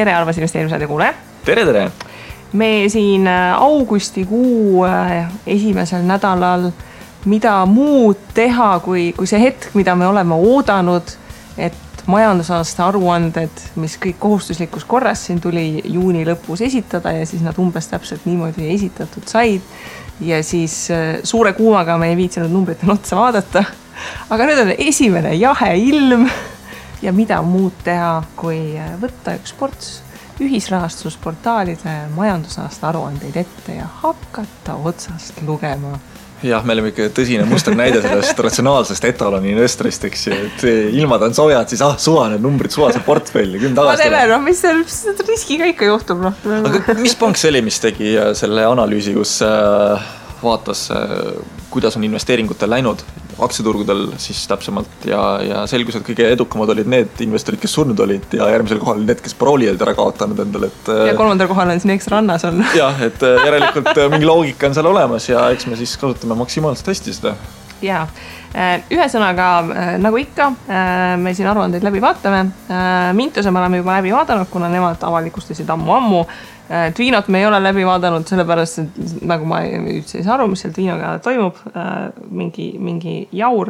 tere, Arvas investeerimisradio kuulaja. Tere! Me siin augustikuu esimesel nädalal mida muud teha, kui see hetk, mida me oleme oodanud, et majandusaasta aruanded, mis kõik kohustuslikus korras siin tuli juuni lõpus esitada ja siis nad umbes täpselt niimoodi esitatud said. Ja siis suure kuumaga me ei viitsinud numbritel otsa vaadata. Aga nüüd on esimene jahe ilm ja mida muud teha, kui võtta üks ports ühisrahastusportaalide majandusaasta aruandeid ette ja hakata otsast lugema. Jah, me oleme ikka tõsine muster näide sellest ratsionaalsest etaloni investorist, eks ju, et ilmad on soojad, siis suva need numbrid, suva see portfelli, küll tagasi. Ma teeme, mis riskiga ikka juhtub. Aga mis pank see oli, mis tegi selle analüüsi, kus vaatas, kuidas on investeeringutel läinud aktsiaturgudel siis täpsemalt ja selgus, et kõige edukamad olid need investorid, kes surnud olid ja järgmisel kohal need, kes parooli olid ära kaotanud endale. Ja kolmandal kohal on siin eks rannas on. Jah, et järelikult mingi loogika on seal olemas ja eks me siis kasutame maksimaalselt hästi seda. Jaa, ühesõnaga, nagu ikka, me siin aruandeid läbi vaatame. Mintuse me oleme juba läbi vaadanud, kuna nemad avalikustasid ammu. Tviinot me ei ole läbi vaadanud, sellepärast, et nagu ma üldse ei saa aru, mis seal Tviinoga toimub, mingi jaur.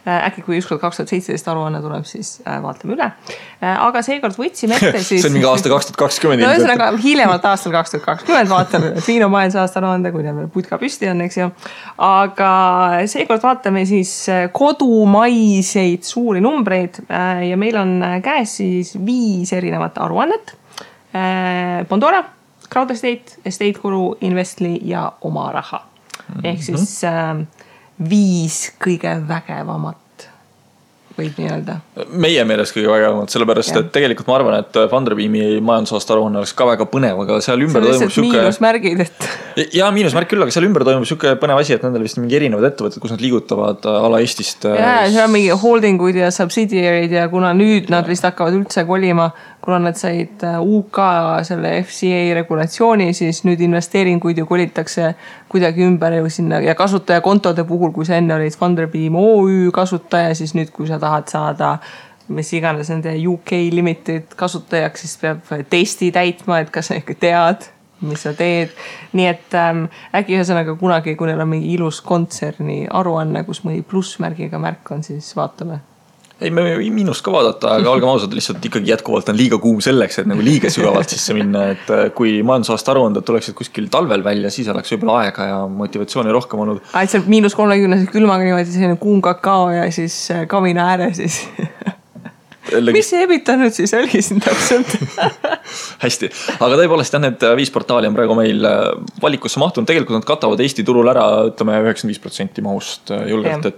Äkki kui ükskord 2017 aruanne tuleb, siis vaatame üle. Aga seekord võtsime ette siis... See on mingi aasta 2020. No ühesõnaga, hiljemalt aastal 2020 vaatame Tviino majandusaasta aruande, kui meil putka püsti on, eks ju. Aga seekord vaatame siis kodumaiseid suuri numbreid ja meil on käes siis 5 erinevat aruannet. Bondora, Crowd Estate Guru, Investli ja Oma Raha. Ehk siis 5 kõige vägevamat võib nii öelda. Meie meelest kõige vägevamat, sellepärast, et tegelikult ma arvan, et Funderbeami majandusaasta aruanne oleks ka väga põnev, aga seal ümber toimub süke... miinusmärgid, et... Ja miinusmärk küll, aga seal ümber toimub süke põnev asi, et nendel vist mingi erinevad ettevõtted, kus nad liigutavad ala Eestist. Ja, seal on mingi holdingud ja subsidiarid ja kuna nüüd nad vist hakkavad üldse kolima, kuna nad said UK selle FCA regulatsiooni, siis nüüd investeeringuid ju kolitakse kuidagi ümber ju sinna ja kasutajakontode puhul, kui sa enne olid Funderbeam OÜ kasutaja, siis nüüd kui sa tahad saada mis iganes nende UK Limited kasutajaks, siis peab testi täitma, et kas sa ikka tead, mis sa teed. Nii et äkki ühesõnaga kunagi, kui neil on mingi ilus kontserni aruanne, kus mõni plussmärgiga märk on, siis vaatame. Ei, me miinust ka vaadata, aga olgem ausad, lihtsalt ikkagi jätkuvalt on liiga kuum selleks, et nagu liiga sügavalt sisse minna, et kui majandusaasta aruanded tuleksid kuskil talvel välja, siis oleks võib-olla aega ja motivatsiooni rohkem olnud. Seal -30 külmaga niimoodi selline kuum kakao ja siis kamina ääre siis. Mis see ebita nüüd siis oli siin täpselt? Hästi, aga tõepoolest jah, need 5 portaali on praegu meil valikusse mahtunud. Tegelikult nad katavad Eesti turul ära, ütleme 95% mahust julgelt,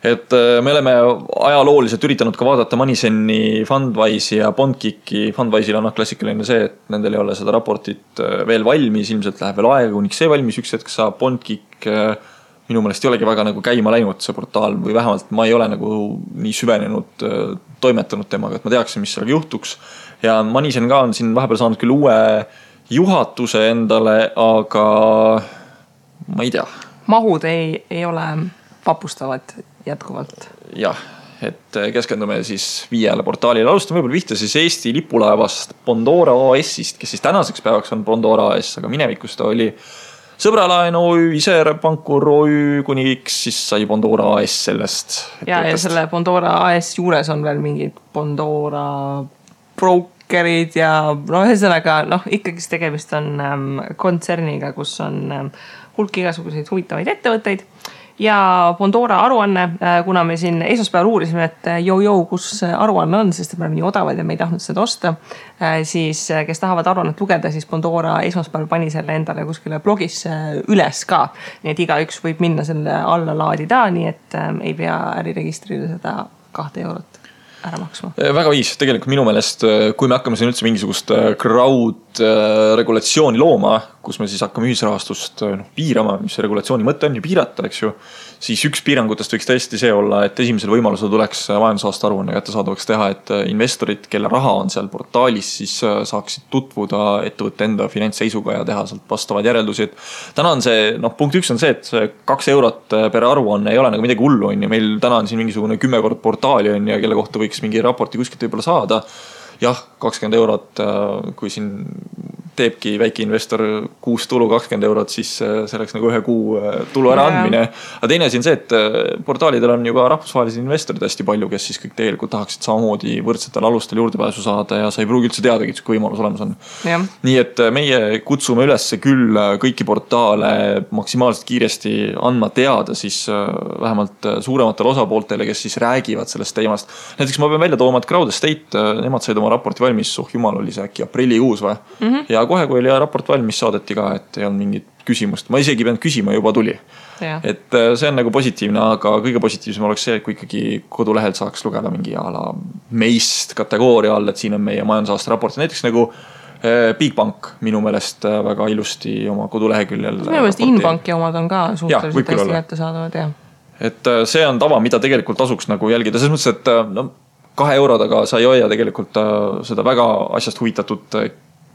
et me oleme ajalooliselt üritanud ka vaadata Moneyseni, Fundwise'i ja Bondkicki. Fundwise'il on klassikaline see, et nendel ei ole seda raportit veel valmis, ilmselt läheb veel aega, kuniks see valmis üks hetk saab. Bondkick minu meelest ei olegi väga nagu käima läinud see portaal või vähemalt ma ei ole nagu nii süvenenud toimetanud temaga, et ma teaksin, mis sellega juhtuks. Ja Moneysen ka on siin vahepeal saanud küll uue juhatuse endale, aga ma ei tea. Mahud ei ole vapustavad jätkuvalt. Jah, et keskendume siis 5 portaalile. Alustame võib-olla vihta siis Eesti lipulaevast Bondora AS-ist, kes siis tänaseks päevaks on Bondora AS, aga minevikus ta oli Sõbralaen OÜ, Iser Pankur OÜ, kuniks siis sai Bondora AS sellest. Ja selle Bondora AS juures on veel mingid Bondora brokerid ja ühesõnaga ikkagi tegemist on kontserniga, kus on hulk igasuguseid huvitavaid ettevõtteid. Ja Bondora aruanne, kuna me siin esmaspäeval uurisime, et kus aruanne on, sest me oleme nii odavad ja me ei tahtnud seda osta, siis kes tahavad aruannet lugeda, siis Bondora esmaspäeval pani selle endale kuskile blogisse üles ka. Nii et igaüks võib minna selle alla laadida, nii et ei pea äriregistrile seda 2 eurot ära maksma. Väga viis, tegelikult minu meelest, kui me hakkame siin üldse mingisugust crowd regulatsiooni looma, kus me siis hakkame ühisrahastust piirama, mis see regulatsiooni mõte on ju piirata, eks ju, siis üks piirangutest võiks tõesti see olla, et esimesel võimalusel tuleks majandusaasta aruanne kättesaadavaks teha, et investorid, kelle raha on seal portaalis, siis saaksid tutvuda ettevõtte enda finantsseisuga ja teha sealt vastavad järeldusi. Täna on see, punkt 1 on see, et 2 eurot per aruanne ei ole nagu midagi hullu, on ju. Meil täna on siin mingisugune 10 kord portaali on ja kelle kohta võiks mingi raporti kuskilt võib-olla saada. jah, 20 eurot, kui siin teebki väike investor kuus tulu 20 eurot, siis see oleks nagu ühe kuu tulu ära andmine. Aga teine asi on see, et portaalidel on ju ka rahvusvahelised investorid hästi palju, kes siis kõik tegelikult tahaksid samamoodi võrdsetel alustel juurdepääsu saada ja sa ei pruugi üldse teadagi, et kui võimalus olemas on. Nii et meie kutsume üles küll kõiki portaale maksimaalselt kiiresti andma teada siis vähemalt suurematele osapooltele, kes siis räägivad sellest teemast. Näiteks ma pean välja tooma, et Crowd Estate, nemad said oma raporti valmis, jumal oli see äkki aprillikuus või? Ja kohe, kui oli raport valmis, saadeti ka, et ei olnud mingit küsimust. Ma isegi pean küsima, juba tuli. Et see on nagu positiivne, aga kõige positiivsem oleks see, et kui ikkagi kodulehel saaks lugeda mingi ala meist kategooria all, et siin on meie majandusaasta raport. Näiteks nagu Bigbank minu meelest väga ilusti oma koduleheküljel. Minu meelest Inbanki omad on ka suhteliselt hästi kätte saadavad, Et see on tava, mida tegelikult tasuks nagu jälgida. Selles mõttes, et no, 2 eurodaga sa ei hoia tegelikult seda väga asjast huvitatud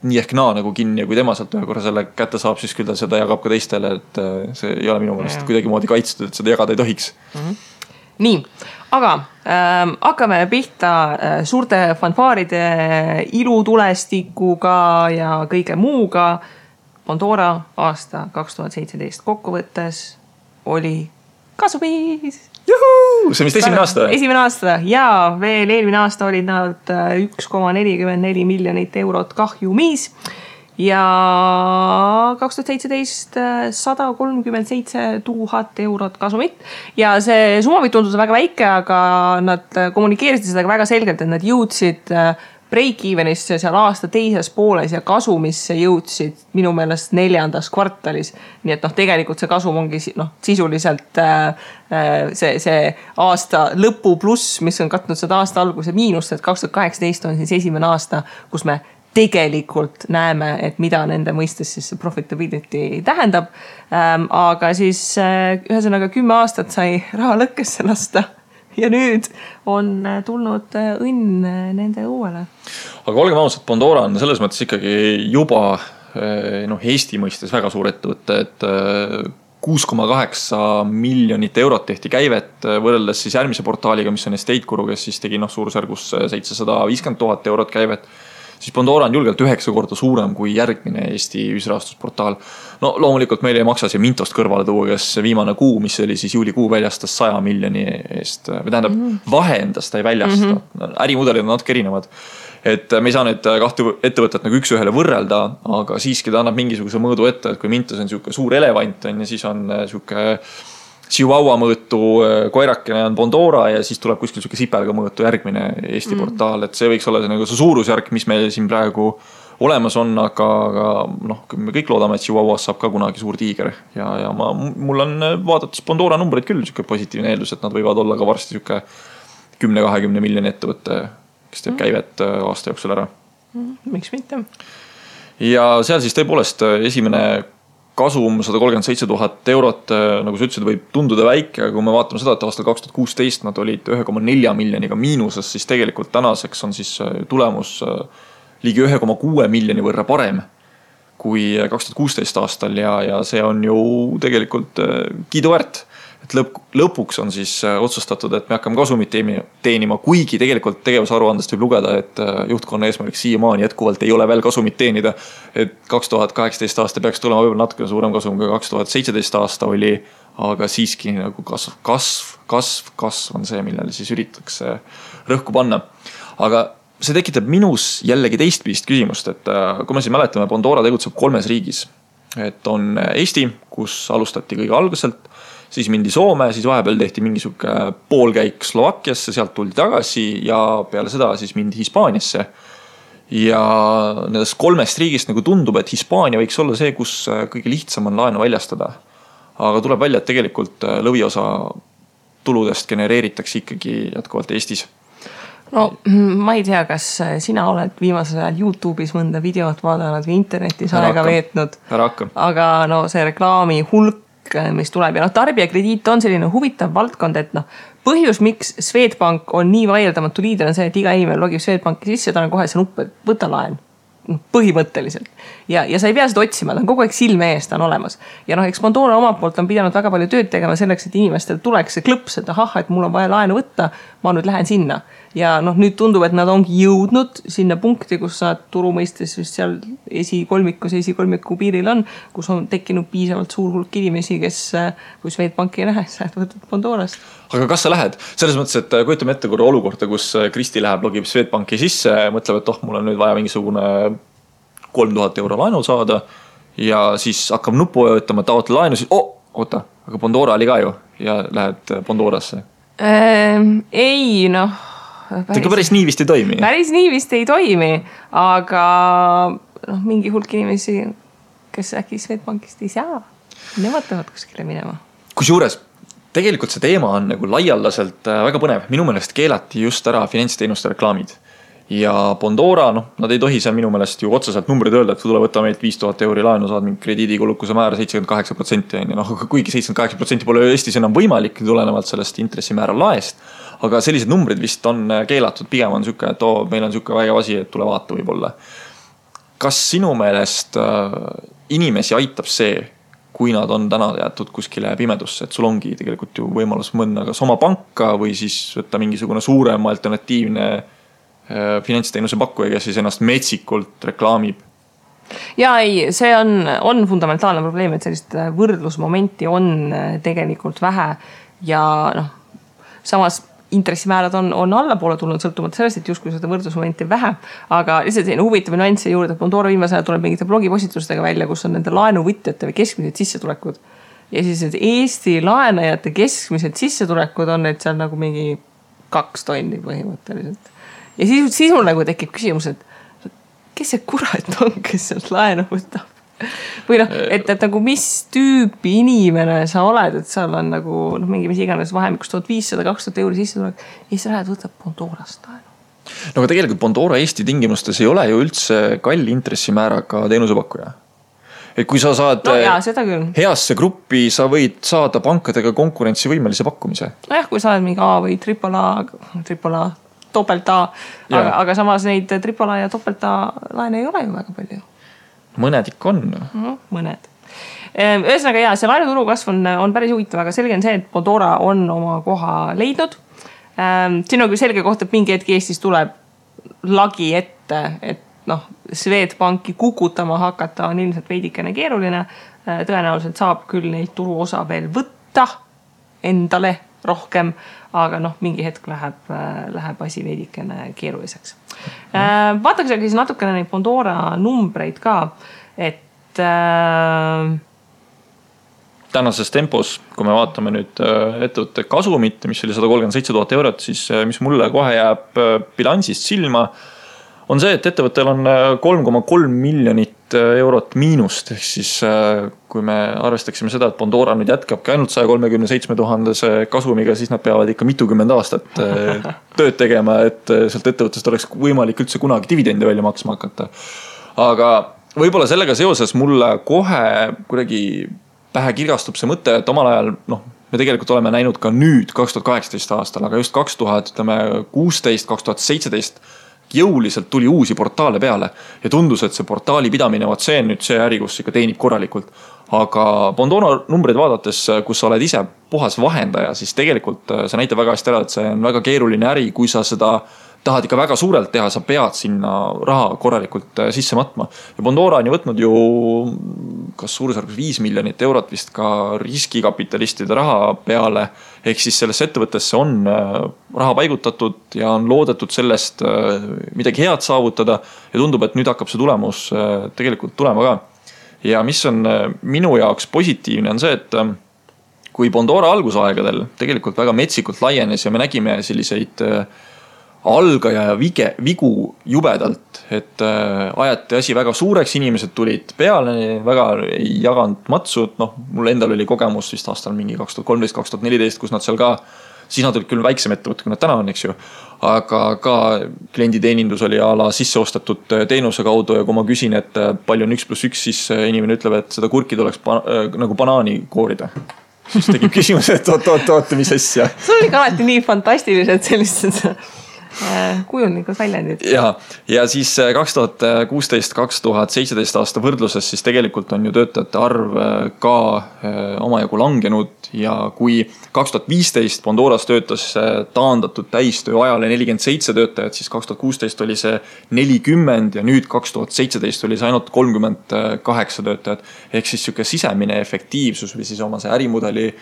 nii ehk naa nagu kinni ja kui tema sealt ühe korra selle kätte saab, siis küll ta seda jagab ka teistele, et see ei ole minu meelest kuidagi moodi kaitstud, et seda jagada ei tohiks. Nii, aga hakkame pihta suurte fanfaaride ilutulestikuga ja kõige muuga. Pandora aasta 2017 kokkuvõttes oli kasumis. Juhuu! See on vist esimene aasta? Esimene aasta ja veel eelmine aasta olid nad 1,44 miljonit eurot kahjumis ja 2017 137 000 eurot kasumit ja see summa võib tunduda väga väike, aga nad kommunikeerisid seda väga selgelt, et nad jõudsid break-evenisse seal aasta teises pooles ja kasumisse jõudsid minu meelest 4. kvartalis. Nii et tegelikult see kasum ongi sisuliselt see aasta lõpu pluss, mis on katnud seda aasta alguse miinust, et 2018 on siis esimene aasta, kus me tegelikult näeme, et mida nende mõistes siis profitability tähendab. Aga siis ühesõnaga 10 aastat sai raha lõkkesse lasta. Ja nüüd on tulnud õnn nende uuele. Aga olgem ausad, Pandora on selles mõttes ikkagi juba Eesti mõistes väga suur ettevõte, et 6,8 miljonit eurot tehti käivet võrreldes siis järgmise portaaliga, mis on Estate Guru, kes siis tegi suurusjärgus 750 000 eurot käivet. Siis Pandora on julgelt 9 korda suurem kui järgmine Eesti ühisrahastusportaal. No loomulikult meil ei maksa see Mintost kõrvale tuua, kes viimane kuu, mis oli siis juulikuu väljastas 100 miljoni eest. Või tähendab, vahendast ta ei väljasta. Ärimudelid on natuke erinevad. Et me ei saa nüüd kahte ettevõtet nagu üks ühele võrrelda, aga siiski ta annab mingisuguse mõõdu ette, et kui Mintos on siuke suur elevant on, ja siis on siuke Chihuahua mõõtu koirakene on Pandora ja siis tuleb kuskil siuke sipelga mõõtu järgmine Eesti portaal, et see võiks olla nagu see suurusjärk, mis meil siin praegu olemas on, aga me kõik loodame, et Chihuahuas saab ka kunagi suur tiiger ja mul on vaadates Pandora numbreid küll siuke positiivne eeldus, et nad võivad olla ka varsti siuke 10-20 miljoni ettevõtte, kes teeb käivet aasta jooksul ära. Miks mitte? Ja seal siis tõepoolest esimene kasum 137 000 eurot, nagu sa ütlesid, võib tunduda väike, aga kui me vaatame seda, et aastal 2016 nad olid 1,4 miljoniga miinuses, siis tegelikult tänaseks on siis tulemus ligi 1,6 miljoni võrra parem kui 2016 aastal ja see on ju tegelikult kiiduväärt. Et lõpuks on siis otsustatud, et me hakkame kasumit teenima, kuigi tegelikult tegevusaruandest võib lugeda, et juhtkonna eesmärk siiamaani jätkuvalt ei ole veel kasumit teenida. Et 2018 aasta peaks tulema võib-olla natuke suurem kasum, kui 2017 aasta oli, aga siiski nagu kasv on see, millele siis üritatakse rõhku panna. Aga see tekitab minus jällegi teistpidist küsimust, et kui me siis mäletame, Pandora tegutseb 3 riigis. Et on Eesti, kus alustati kõige alguselt, siis mindi Soome, siis vahepeal tehti mingisugune poolkäik Slovakkiasse, sealt tuldi tagasi ja peale seda siis mindi Hispaaniasse. Ja nendest 3 riigist nagu tundub, et Hispaania võiks olla see, kus kõige lihtsam on laenu väljastada. Aga tuleb välja, et tegelikult lõviosa tuludest genereeritakse ikkagi jätkuvalt Eestis. No ma ei tea, kas sina oled viimasel ajal YouTube'is mõnda videot vaadanud või internetis aega veetnud. Aga see reklaami hulk, mis tuleb ja tarbijakrediit on selline huvitav valdkond, et põhjus, miks Swedbank on nii vaieldamatu liider on see, et iga inimene logib Swedbanki sisse, ta on kohe see nupp, et võta laen. põhimõtteliselt. Ja sa ei pea seda otsima, ta on kogu aeg silme ees, ta on olemas. Ja eks Pandora omalt poolt on pidanud väga palju tööd tegema selleks, et inimestel tuleks see klõps, et ahah, et mul on vaja laenu võtta, ma nüüd lähen sinna. Ja nüüd tundub, et nad ongi jõudnud sinna punkti, kus sa turu mõistes vist seal esikolmiku piiril on, kus on tekkinud piisavalt suur hulk inimesi, kes kui Swedbanki ei lähe, sa võtad Pandorast. Aga kas sa lähed? Selles mõttes, et kujutame ette korra olukorda, kus Kristi läheb, logib Swedbanki sisse, mõtleb, et mul on nüüd vaja mingisugune 3000 euro laenu saada ja siis hakkab nupu öötama, taotle laenu, siis oota, aga Pandora oli ka ju ja lähed Pandorasse. Ei, päris nii vist ei toimi. Päris nii vist ei toimi, aga mingi hulk inimesi, kes äkki Swedbankist ei saa, nemad peavad kuskile minema. Kusjuures, tegelikult see teema on nagu laialdaselt väga põnev. Minu meelest keelati just ära finantsteenuste reklaamid. Ja Pandora, nad ei tohi seal minu meelest ju otseselt numbrid öelda, et tule võtta meilt 5000 euri laenu, saad mingi krediidikulukuse määra 78%. Kuigi 78% pole Eestis enam võimalik tulenevalt sellest intressimäära laest, aga sellised numbrid vist on keelatud, pigem on süke, et meil on süke vägev asi, et tule vaata võib-olla. Kas sinu meelest inimesi aitab see, kui nad on täna jäetud kuskile pimedusse, et sul ongi tegelikult ju võimalus mõnda kas oma panka või siis võtta mingisugune suurem alternatiivne finantsteenuse pakkuja, kes siis ennast metsikult reklaamib? Ja ei, see on fundamentaalne probleem, et sellist võrdlusmomenti on tegelikult vähe ja samas intressimäärad on allapoole tulnud sõltumata sellest, et justkui seda võrdlusmomenti vähe, aga lihtsalt selline huvitav nüansse juurde, et Pandora viimase ajal tuleb mingite blogipostitustega välja, kus on nende laenuvõtjate või keskmised sissetulekud ja siis et Eesti laenajate keskmised sissetulekud on need seal nagu mingi 2 tonni põhimõtteliselt. Ja siis mul nagu tekib küsimus, et kes see kurat on, kes sealt laenu võtab? Või et nagu mis tüüpi inimene sa oled, et seal on nagu mingi mis iganes vahemikus 1500-2000 euri sissetulek ja sa lähed võtab Pandorast laenu. Aga tegelikult Pandora Eesti tingimustes ei ole ju üldse kalli intressimääraga teenusepakkuja. Et kui sa saad heasse gruppi, sa võid saada pankadega konkurentsivõimelise pakkumise. Kui sa oled mingi A või AAA, doppelt A, aga samas neid AAA ja doppelt A laene ei ole ju väga palju. Mõned ikka on. Mõned. Ühesõnaga see laenuturu kasv on päris huvitav, aga selge on see, et Pandora on oma koha leidnud. Siin on küll selge koht, et mingi hetk Eestis tuleb lagi ette, et Swedbanki kukutama hakata on ilmselt veidikene keeruline. Tõenäoliselt saab küll neid turuosa veel võtta endale rohkem, aga mingi hetk läheb asi veidikene keeruliseks. Vaataks aga siis natukene neid Pandora numbreid ka, et tänases tempos, kui me vaatame nüüd ettevõtte kasumit, mis oli 137 000 eurot, siis mis mulle kohe jääb bilansist silma, on see, et ettevõttel on 3,3 miljonit eurot miinust. Ehk siis kui me arvestaksime seda, et Pandora nüüd jätkabki ainult 137 000 kasumiga, siis nad peavad ikka mitukümmend aastat tööd tegema, et sealt ettevõttest oleks võimalik üldse kunagi dividende välja maksma hakata. Aga võib-olla sellega seoses mulle kohe kuidagi pähe kirgastub see mõte, et omal ajal, me tegelikult oleme näinud ka nüüd 2018 aastal, aga just 2016, 2017 jõuliselt tuli uusi portaale peale ja tundus, et see portaali pidamine, see on nüüd see äri, kus ikka teenib korralikult. Aga Pandora numbreid vaadates, kus sa oled ise puhas vahendaja, siis tegelikult see näitab väga hästi ära, et see on väga keeruline äri, kui sa seda tahad ikka väga suurelt teha, sa pead sinna raha korralikult sisse matma. Ja Pandora on ju võtnud ju kas suurusjärgus 5 miljonit eurot vist ka riskikapitalistide raha peale. Ehk siis sellesse ettevõttesse on raha paigutatud ja on loodetud sellest midagi head saavutada ja tundub, et nüüd hakkab see tulemus tegelikult tulema ka. Ja mis on minu jaoks positiivne on see, et kui Pandora algusaegadel tegelikult väga metsikult laienes ja me nägime selliseid algaja ja vigu jubedalt, et ajati asi väga suureks, inimesed tulid peale, väga ei jaganud matsud, mul endal oli kogemus vist aastal mingi 2013-2014, kus nad seal ka, siis nad olid küll väiksem ettevõte, kui nad täna on, eks ju, aga ka klienditeenindus oli ala sisseostatud teenuse kaudu ja kui ma küsin, et palju on 1+1, siis inimene ütleb, et seda kurki tuleks nagu banaani koorida. Siis tekib küsimus, et oot, mis asja. See oli ka alati nii fantastilised sellised kujundlikud väljendid. Ja siis 2016-2017 aasta võrdluses siis tegelikult on ju töötajate arv ka omajagu langenud ja kui 2015 Pandoras töötas taandatud täistöö ajale 47 töötajat, siis 2016 oli see 40 ja nüüd 2017 oli see ainult 38 töötajat. Ehk siis siuke sisemine efektiivsus või siis oma see ärimudeli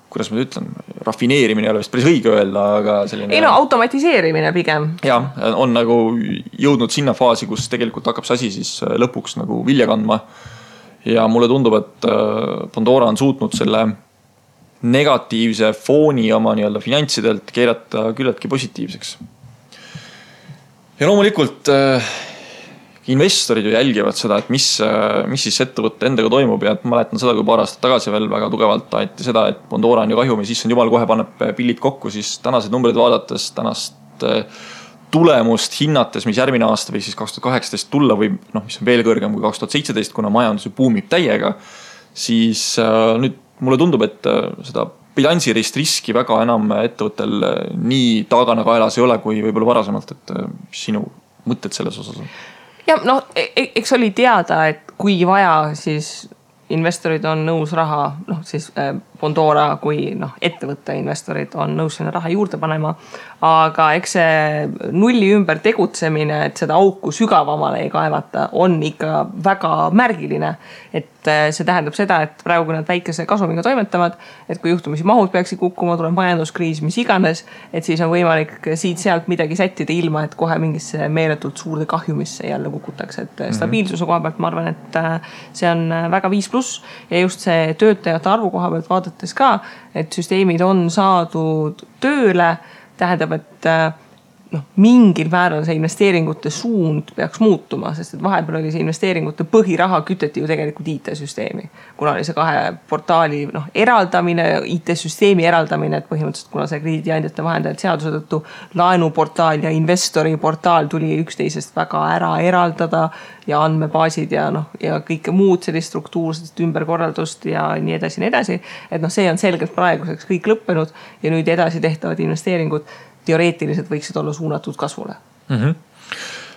kuidas ma ütlen, rafineerimine ei ole vist päris õige öelda, aga selline... Ei no, automatiseerimine pigem. Ja, on nagu jõudnud sinna faasi, kus tegelikult hakkab see asi siis lõpuks nagu vilja kandma. Ja mulle tundub, et Pandora on suutnud selle negatiivse fooni oma nii-öelda finantsidelt keerata küllaltki positiivseks. Ja loomulikult... investorid ju jälgivad seda, et mis siis ettevõtte endaga toimub ja ma mäletan seda, kui paar aastat tagasi veel väga tugevalt aeti seda, et Pandora on ju kahjumi, siis on jumal kohe paneb pillid kokku, siis tänased numbrid vaadates, tänast tulemust hinnates, mis järgmine aasta või siis 2018 tulla või mis on veel kõrgem kui 2017, kuna majandus buumib täiega, siis nüüd mulle tundub, et seda bilansirist riski väga enam ettevõttel nii taagana kaelas ei ole, kui võib-olla varasemalt, et sinu mõtted selles osas on. Ja eks oli teada, et kui vaja, siis investorid on nõus raha, siis Pandora kui ettevõtte investorid on nõus sinna raha juurde panema, aga eks see nulli ümber tegutsemine, et seda auku sügavamale ei kaevata, on ikka väga märgiline. Et see tähendab seda, et praegu kui nad väikese kasumiga toimetavad, et kui juhtumisi mahud peaksid kukkuma, tuleb majanduskriis, mis iganes, et siis on võimalik siit-sealt midagi sättida ilma, et kohe mingisse meeletult suurde kahjumisse jälle kukutakse. Et stabiilsuse koha pealt ma arvan, et see on väga 5+ ja just see töötajate arvu koha pealt vaadates ka, et süsteemid on saadud tööle, tähendab, et mingil määral see investeeringute suund peaks muutuma, sest et vahepeal oli see investeeringute põhiraha küteti ju tegelikult IT-süsteemi. Kuna oli see 2 portaali eraldamine, IT-süsteemi eraldamine, et põhimõtteliselt kuna see krediidiandjate vahendajad seaduse tõttu laenuportaal ja investori portaal tuli üksteisest väga ära eraldada ja andmebaasid ja kõike muud sellist struktuurset ümberkorraldust ja nii edasi. Et see on selgelt praeguseks kõik lõppenud ja nüüd edasi tehtavad investeeringud teoreetiliselt võiksid olla suunatud kasvule.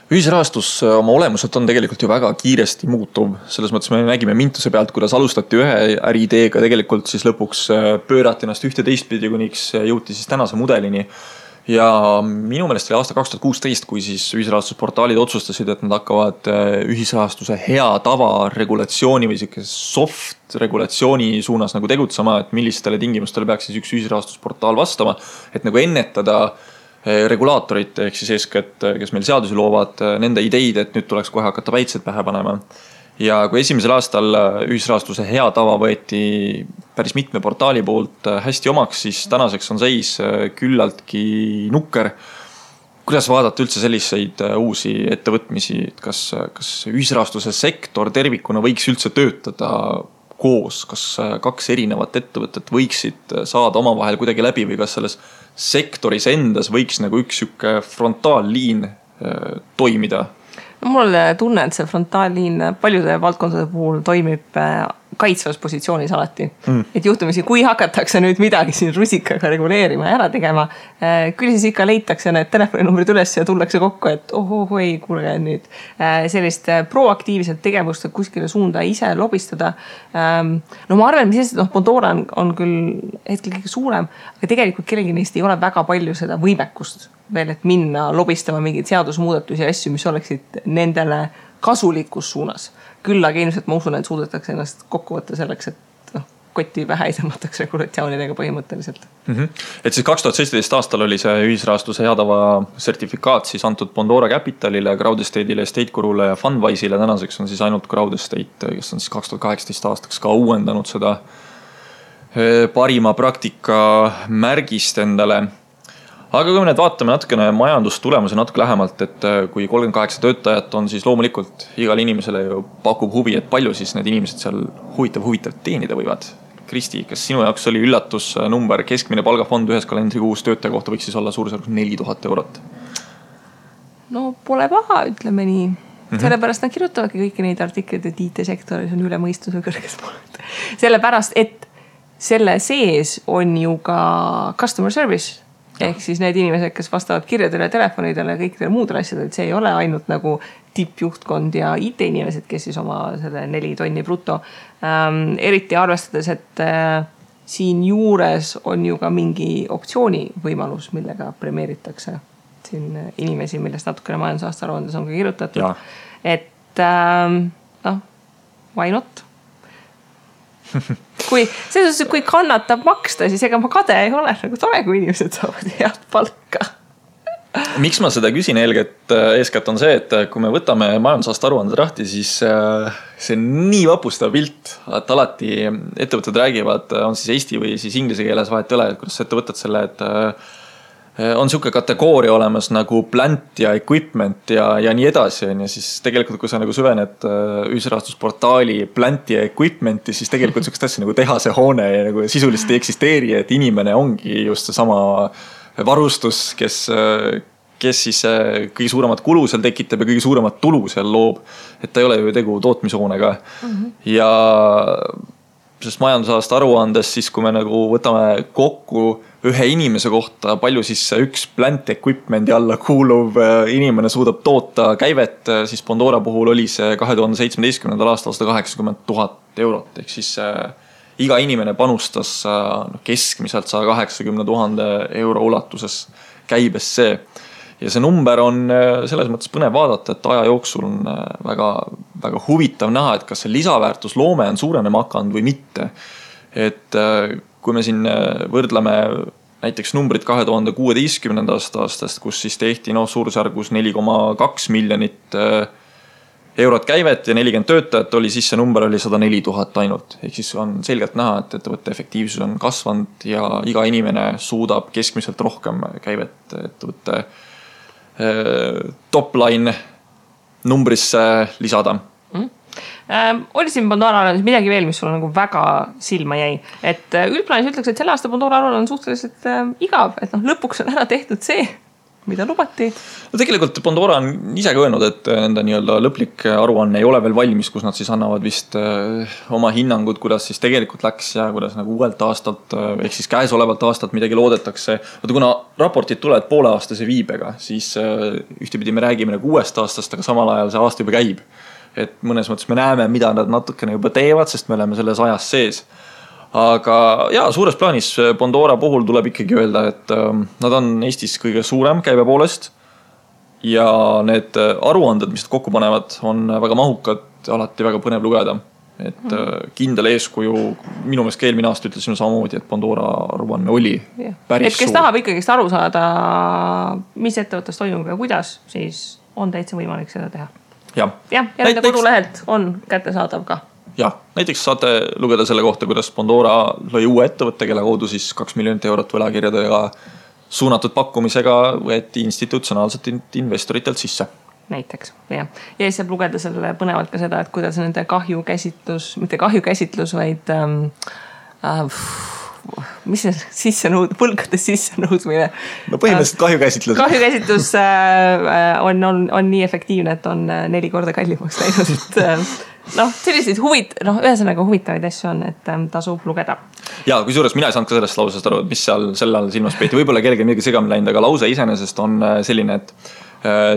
Ühisrahastus oma olemuselt on tegelikult ju väga kiiresti muutuv. Selles mõttes me nägime Mintuse pealt, kuidas alustati ühe äriideega, tegelikult siis lõpuks pöörati ennast ühte teistpidi, kuniks jõuti siis tänase mudelini. Ja minu meelest oli aasta 2016, kui siis ühisrahastusportaalid otsustasid, et nad hakkavad ühisrahastuse hea tava regulatsiooni või soft regulatsiooni suunas nagu tegutsema, et millistele tingimustele peaks siis üks ühisrahastusportaal vastama, et nagu ennetada regulaatorit ehk siis eeskätt, kes meil seadusi loovad, nende ideid, et nüüd tuleks kohe hakata päitsed pähe panema. Ja kui esimesel aastal ühisrahastuse hea tava võeti päris mitme portaali poolt hästi omaks, siis tänaseks on seis küllaltki nukker. Kuidas vaadata üldse selliseid uusi ettevõtmisi, kas ühisrahastuse sektor tervikuna võiks üldse töötada koos, kas 2 erinevat ettevõtet võiksid saada omavahel kuidagi läbi või kas selles sektoris endas võiks nagu üks frontaalliin toimida? Mul tunne, et see frontaalliin paljude valdkondade puhul toimib kaitsvas positsioonis alati. Et juhtumisi, kui hakatakse nüüd midagi siin rusikaga reguleerima ja ära tegema, küll siis ikka leitakse need telefoninumbrid üles ja tullakse kokku, et ei, kuulge nüüd sellist proaktiivset tegevust kuskile suunda ise lobistada. Ma arvan, mis Pandora on küll hetkel kõige suurem, aga tegelikult kellegi neist ei ole väga palju seda võimekust veel, et minna lobistama mingeid seadusmuudatusi ja asju, mis oleksid nendele kasulikus suunas. Küll aga ilmselt ma usun, et suudetakse ennast kokku võtta selleks, et kotti pähe ei tõmmatakse regulatsioonidega põhimõtteliselt. Et siis 2017 aastal oli see ühisrahastuse heatava sertifikaat siis antud Pandora Capitalile, Crowdestate'ile, Estatecorule ja Fundwise'ile. Tänaseks on siis ainult Crowdestate, kes on siis 2018 aastaks ka uuendanud seda parima praktika märgist endale. Aga kui me nüüd vaatame natukene majandustulemuse natuke lähemalt, et kui 38 töötajat on, siis loomulikult igal inimesele ju pakub huvi, et palju siis need inimesed seal huvitav teenida võivad. Kristi, kas sinu jaoks oli üllatusnumber, keskmine palgafond ühes kalendrikuus töötaja kohta võiks siis olla suurusjärgus 4000 eurot? No pole paha, ütleme nii. Sellepärast nad kirjutavadki kõiki neid artikleid, et IT-sektoris on üle mõistuse kõrges pooled. Sellepärast, et selle sees on ju ka customer service Ehk siis need inimesed, kes vastavad kirjadele, telefonidele ja kõikidele muudele asjadele, et see ei ole ainult nagu tippjuhtkond ja IT-inimesed, kes siis oma selle 4 tonni bruto. Eriti arvestades, et siin juures on ju ka mingi optsiooni võimalus, millega premeeritakse siin inimesi, millest natukene majandusaasta aruandes on ka kirjutatud. Ja. Et why not? Kui kannatab maksta, siis ega ma kade ei ole, nagu tore, kui inimesed saavad head palka. Miks ma seda küsin eeskätt on see, et kui me võtame majandusaasta aruanded lahti, siis see on nii vapustav pilt, et alati ettevõtted räägivad, on siis eesti või siis inglise keeles vahet ei ole, et kuidas ettevõtted selle, et on siuke kategooria olemas nagu plant ja equipment ja nii edasi. Ja siis tegelikult, kui sa nagu süvened ühisrahastusportaali plant ja equipmenti, siis tegelikult siukest asja nagu tehase hoone ja nagu sisuliselt ei eksisteeri, et inimene ongi just see sama varustus, kes siis kõige suuremat kulu seal tekitab ja kõige suuremat tulu seal loob. Et ta ei ole ju tegu tootmishoonega. Ja sest majandusaasta aruandes siis, kui me nagu võtame kokku ühe inimese kohta, palju siis üks plant equipmendi alla kuuluv inimene suudab toota käivet, siis Pandora puhul oli see 2017. aastal 180 000 eurot. Ehk siis iga inimene panustas keskmiselt 180 000 euro ulatuses käibesse. Ja see number on selles mõttes põnev vaadata, et aja jooksul on väga, väga huvitav näha, et kas see lisaväärtus loome on suurenema hakanud või mitte. Et kui me siin võrdleme näiteks numbrid 2016. aastast, kus siis tehti suurusjärgus 4,2 miljonit eurot käivet ja 40 töötajat oli, siis see number oli 104 000 ainult. Ehk siis on selgelt näha, et ettevõtte efektiivsus on kasvanud ja iga inimene suudab keskmiselt rohkem käivet ettevõtte top-line numbrisse lisada. Oli siin Pandora aruandes midagi veel, mis sulle nagu väga silma jäi, et üldplaanis ütleks, et selle aasta Pandora aruanne on suhteliselt igav, et lõpuks on ära tehtud see, mida lubati. No tegelikult Pandora on ise ka öelnud, et nende nii-öelda lõplik aruanne ei ole veel valmis, kus nad siis annavad vist oma hinnangud, kuidas siis tegelikult läks ja kuidas nagu uuelt aastalt ehk siis käesolevalt aastalt midagi loodetakse. Vaata, kuna raportid tulevad pooleaastase viibega, siis ühtepidi me räägime nagu uuest aastast, aga samal ajal see aasta juba käib. Et mõnes mõttes me näeme, mida nad natukene juba teevad, sest me oleme selles ajas sees. Aga suures plaanis Pandora puhul tuleb ikkagi öelda, et nad on Eestis kõige suurem käibe poolest ja need aruanded, mis nad kokku panevad, on väga mahukad, alati väga põnev lugeda. Et kindel eeskuju, minu meelest eelmine aasta ütlesin samamoodi, et Pandora aruanne oli päris suur. Et kes tahab ikkagi aru saada, mis ettevõttes toimub ja kuidas, siis on täitsa võimalik seda teha. Ja nende kodulehelt on kättesaadav ka. Ja, näiteks saate lugeda selle kohta, kuidas Pandora lõi uue ettevõtte, kelle kaudu siis 2 miljonit eurot võlakirjadega suunatud pakkumisega võeti institutsionaalselt investoritelt sisse. Näiteks, ja siis saab lugeda selle põnevalt ka seda, et kuidas nende kahjukäsitlus, mitte kahjukäsitlus, vaid mis see võlgade sissenõudmine? No põhimõtteliselt kahjukäsitlus. Kahjukäsitlus on nii efektiivne, et on 4 korda kallimaks läinud. Selliseid ühesõnaga huvitavaid asju on, et tasub lugeda. Ja kui suures mina ei saanud ka sellest lausest aru, et mis seal selle all silmas peeti. Võib-olla kellegi midagi segamini läinud, aga lause iseenesest on selline, et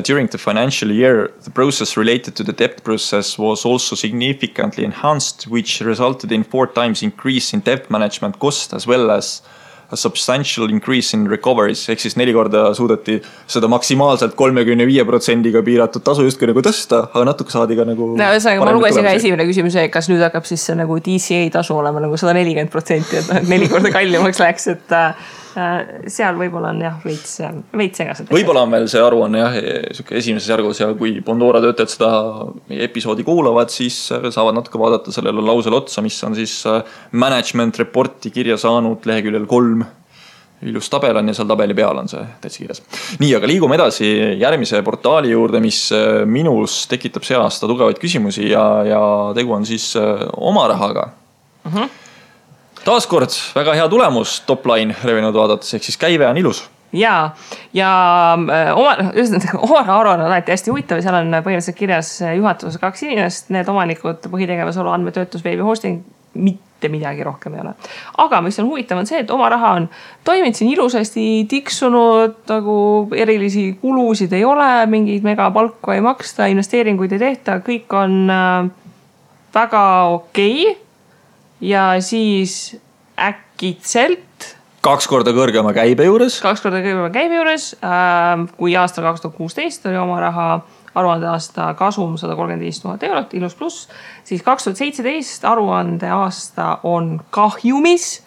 during the financial year, the process related to the debt process was also significantly enhanced, which resulted in 4 times increase in debt management cost as well as a substantial increase in recoveries. Ehk siis 4 korda suudeti seda maksimaalselt 35% piiratud tasu justkui nagu tõsta, aga natuke saadi ka nagu... ma lugesin ka esimene küsimuse, kas nüüd hakkab siis see nagu DCA tasu olema nagu 140%, et 4 korda kallimaks läks, et seal võib-olla on veits segased. Võib-olla on veel see aruanne esimeses järgus ja kui Pandora töötajad seda episoodi kuulavad, siis saavad natuke vaadata sellele lausele otsa, mis on siis management reporti kirja saanud leheküljel 3. Ilus tabel on ja seal tabeli peal on see täitsa kirjas. Nii, aga liigume edasi järgmise portaali juurde, mis minus tekitab see aasta tugevaid küsimusi ja tegu on siis oma rahaga. Taaskord väga hea tulemus top-line revenud vaadates, ehk siis käive on ilus. Ja oma aruanne on alati hästi huvitav, seal on põhimõtteliselt kirjas juhatuses 2 inimest, need omanikud, põhitegevusolu, andmetöötlus, veebi hosting, mitte midagi rohkem ei ole. Aga mis on huvitav on see, et oma raha on toiminud siin ilusasti, tiksunud, nagu erilisi kulusid ei ole, mingeid megapalku ei maksta, investeeringuid ei tehta, kõik on väga okei. Ja siis äkitselt 2 korda kõrgema käibe juures. Kui aastal 2016 oli oma raha aruande aasta kasum 135 000 eurot, ilus pluss, siis 2017 aruande aasta on kahjumis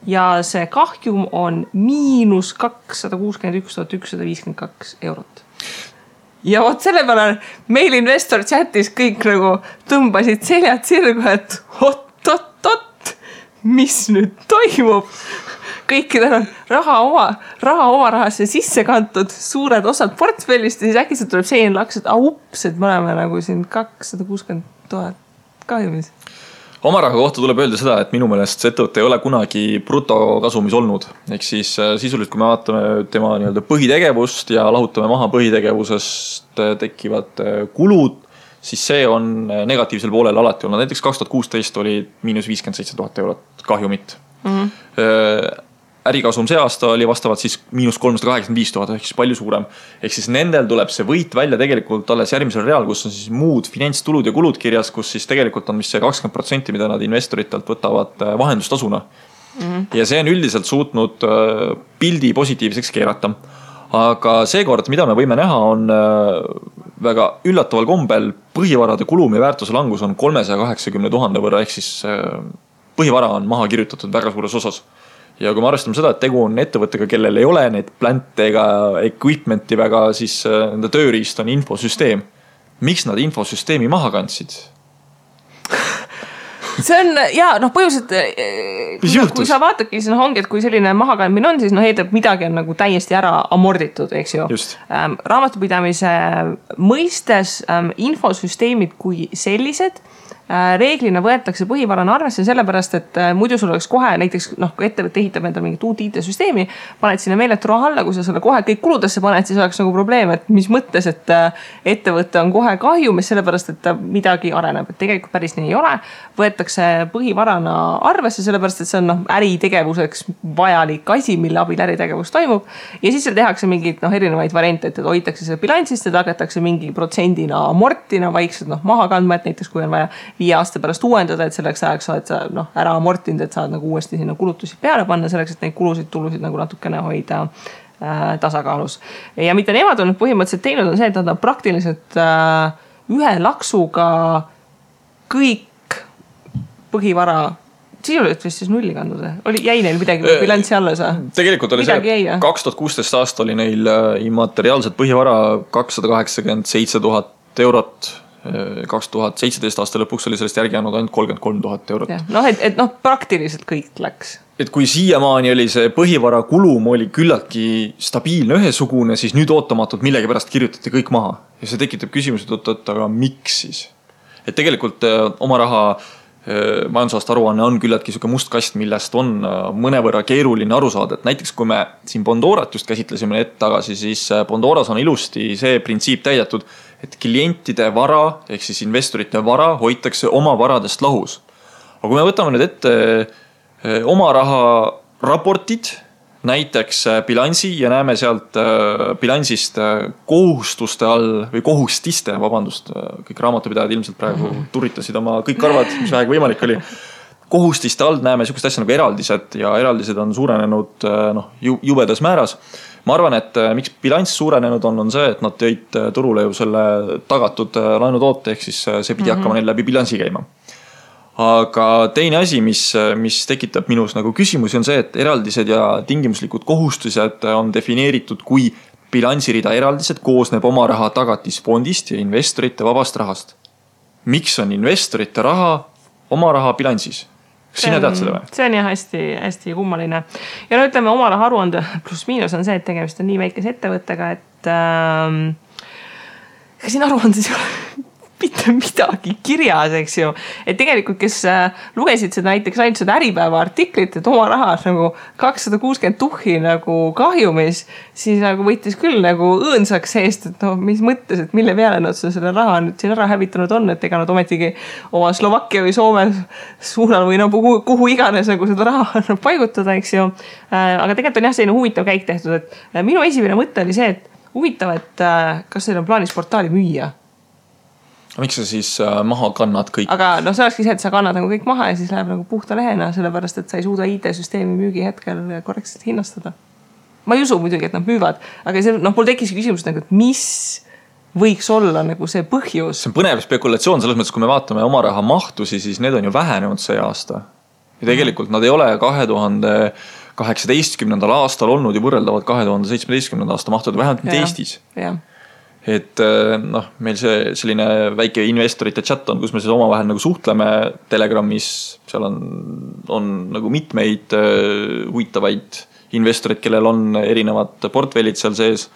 ja see kahjum on miinus 261 152 eurot. Ja vot selle peale meil investor chatis kõik nagu tõmbasid seljad sirgu, et oot, mis nüüd toimub? Kõikidel on raha oma rahasse sisse kantud, suured osad portfellist ja siis äkki tuleb selline laks, et ups, et me oleme nagu siin 260 000 kahjumis. Oma raha kohta tuleb öelda seda, et minu meelest see ettevõte ei ole kunagi brutokasumis olnud. Ehk siis sisuliselt, kui me vaatame tema nii-öelda põhitegevust ja lahutame maha põhitegevusest tekivad kulud, siis see on negatiivsel poolel alati olnud. Näiteks 2016 oli miinus 57 000 eurot kahjumit. Ärikasum see aasta oli vastavalt siis miinus 385 000, ehk siis palju suurem. Ehk siis nendel tuleb see võit välja tegelikult alles järgmisel real, kus on siis muud finantstulud ja kulud kirjas, kus siis tegelikult on vist see 20%, mida nad investoritelt võtavad vahendustasuna. Ja see on üldiselt suutnud pildi positiivseks keerata. Aga seekord, mida me võime näha, on väga üllataval kombel põhivarade kulum ja väärtuse langus on 380 000 võrra, ehk siis põhivara on maha kirjutatud väga suures osas. Ja kui me arvestame seda, et tegu on ettevõttega, kellel ei ole neid plante ega equipmenti väga, siis nende tööriist on infosüsteem. Miks nad infosüsteemi maha kandsid? See on, põhjuselt, kui sa vaatadki, siis ongi, et kui selline mahakandmine on, siis eeldab midagi on nagu täiesti ära amorditud, eks ju. Raamatupidamise mõistes infosüsteemid kui sellised reeglina võetakse põhivarana arvesse sellepärast, et muidu sul oleks kohe näiteks, kui ettevõte ehitab endale mingit uut IT-süsteemi, paned sinna meeletu raha alla, kui sa selle kohe kõik kuludesse paned, siis oleks nagu probleem, et mis mõttes, et ettevõte on kohe kahjumis sellepärast, et ta midagi areneb, et tegelikult päris nii ei ole. Võetakse põhivarana arvesse sellepärast, et see on äritegevuseks vajalik asi, mille abil äritegevus toimub ja siis seal tehakse mingid erinevaid variante, et hoitakse selle bilansist ja tagatakse mingi protsendina amortina vaikselt maha kandma, et näiteks kui on vaja 5 aasta pärast uuendada, et selleks ajaks oled sa ära amortinud, et saad nagu uuesti sinna kulutusi peale panna selleks, et neid tulusid nagu natukene hoida tasakaalus. Ja mida nemad on põhimõtteliselt teinud on see, et nad on praktiliselt ühe laksuga kõik põhivara sisuliselt vist siis nulli kandnud. Jäi neil midagi bilanssi alla sa? Tegelikult oli see, 2016 aasta oli neil immateriaalset põhivara 287 000 eurot. 2017 aasta lõpuks oli sellest järgi jäänud ainult 33 000 eurot. Praktiliselt kõik läks. Et kui siiamaani oli see põhivara kulum oli küllaltki stabiilne ühesugune, siis nüüd ootamatult millegi pärast kirjutati kõik maha. Ja see tekitab küsimused, aga miks siis? Et tegelikult oma raha majandusaasta aruanne on küllaltki siuke must kast, millest on mõnevõrra keeruline aru saada. Et näiteks kui me siin Bondorat just käsitlesime hetk tagasi, siis Bondoras on ilusti see printsiip täidetud, et klientide vara, ehk siis investorite vara hoitakse oma varadest lahus. Aga kui me võtame nüüd ette oma raha raportid, näiteks bilansi ja näeme sealt bilansist kohustuste all või kohustiste, kõik raamatupidajad ilmselt praegu turitasid oma kõik karvad, mis vähegi võimalik oli. Kohustiste all näeme sükest asja nagu eraldised ja eraldised on suurenenud jubedas määras. Ma arvan, et miks bilanss suurenenud on see, et nad tõid turule ju selle tagatud laenutoote, ehk siis see pidi hakkama neil läbi bilansi käima. Aga teine asi, mis tekitab minus nagu küsimusi on see, et eraldised ja tingimuslikud kohustused on defineeritud kui bilansirida eraldised koosneb oma raha tagatisfondist ja investorite vabast rahast. Miks on investorite raha oma raha bilansis? Sina tead seda või? See on jah hästi kummaline. Ja ütleme, oma raha aruande pluss miinus on see, et tegemist on nii väikese ettevõttega, et siin aruandes mitte midagi kirjas, eks ju. Et tegelikult, kes lugesid seda näiteks ainult seda Äripäeva artiklit, et oma rahas nagu 260 tuhhi nagu kahjumis, siis nagu võttis küll nagu õõnsaks seest, et no mis mõttes, et mille peale nad selle raha nüüd siin ära hävitanud on, et ega nad ometigi oma Slovakkia või Soome suunal või no kuhu iganes nagu seda raha paigutada, eks ju. Aga tegelikult on jah selline huvitav käik tehtud, et minu esimene mõte oli see, et huvitav, et kas teil on plaanis portaali müüa? Miks sa siis maha kannad kõik? Aga no see olekski see, et sa kannad nagu kõik maha ja siis läheb nagu puhta lehena, sellepärast, et sa ei suuda IT-süsteemi müügi hetkel korrektselt hinnastada. Ma ei usu muidugi, et nad müüvad, aga see, no mul tekkis küsimus nagu, et mis võiks olla nagu see põhjus? See on põnev spekulatsioon selles mõttes, kui me vaatame oma raha mahtusi, siis need on ju vähenenud see aasta. Ja tegelikult nad ei ole 2018. aastal olnud ju võrreldavad 2017. aasta mahtud, vähemalt mitte Eestis. Jah. Et noh, meil see selline väike investorite chat on, kus me siis omavahel nagu suhtleme Telegramis, seal on nagu mitmeid huvitavaid investorid, kellel on erinevad portfellid seal sees.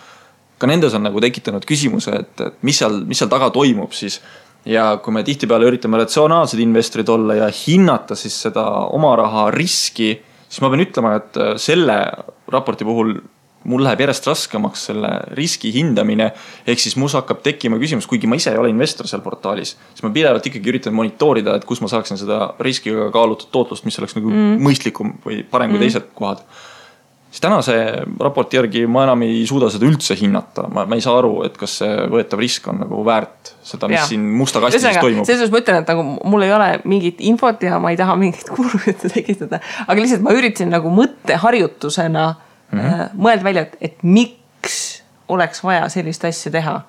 Ka nendes on nagu tekitanud küsimuse, et mis seal taga toimub siis. Ja kui me tihtipeale üritame ratsionaalsed investorid olla ja hinnata siis seda oma raha riski, siis ma pean ütlema, et selle raporti puhul mul läheb järjest raskemaks selle riski hindamine, ehk siis mul hakkab tekkima küsimus, kuigi ma ise ei ole investor seal portaalis, siis ma pidevalt ikkagi üritan monitoorida, et kus ma saaksin seda riskiga kaalutud tootlust, mis oleks nagu mõistlikum või parem kui teised kohad. Siis tänase raporti järgi ma enam ei suuda seda üldse hinnata. Ma ei saa aru, et kas see võetav risk on nagu väärt seda, mis siin musta kastis toimub. Selles ma ütlen, et nagu mul ei ole mingit infot ja ma ei taha mingit kurvjutte tekitada, aga lihtsalt ma üritasin nagu mõtteharjutusena mõelda välja, et miks oleks vaja sellist asja teha.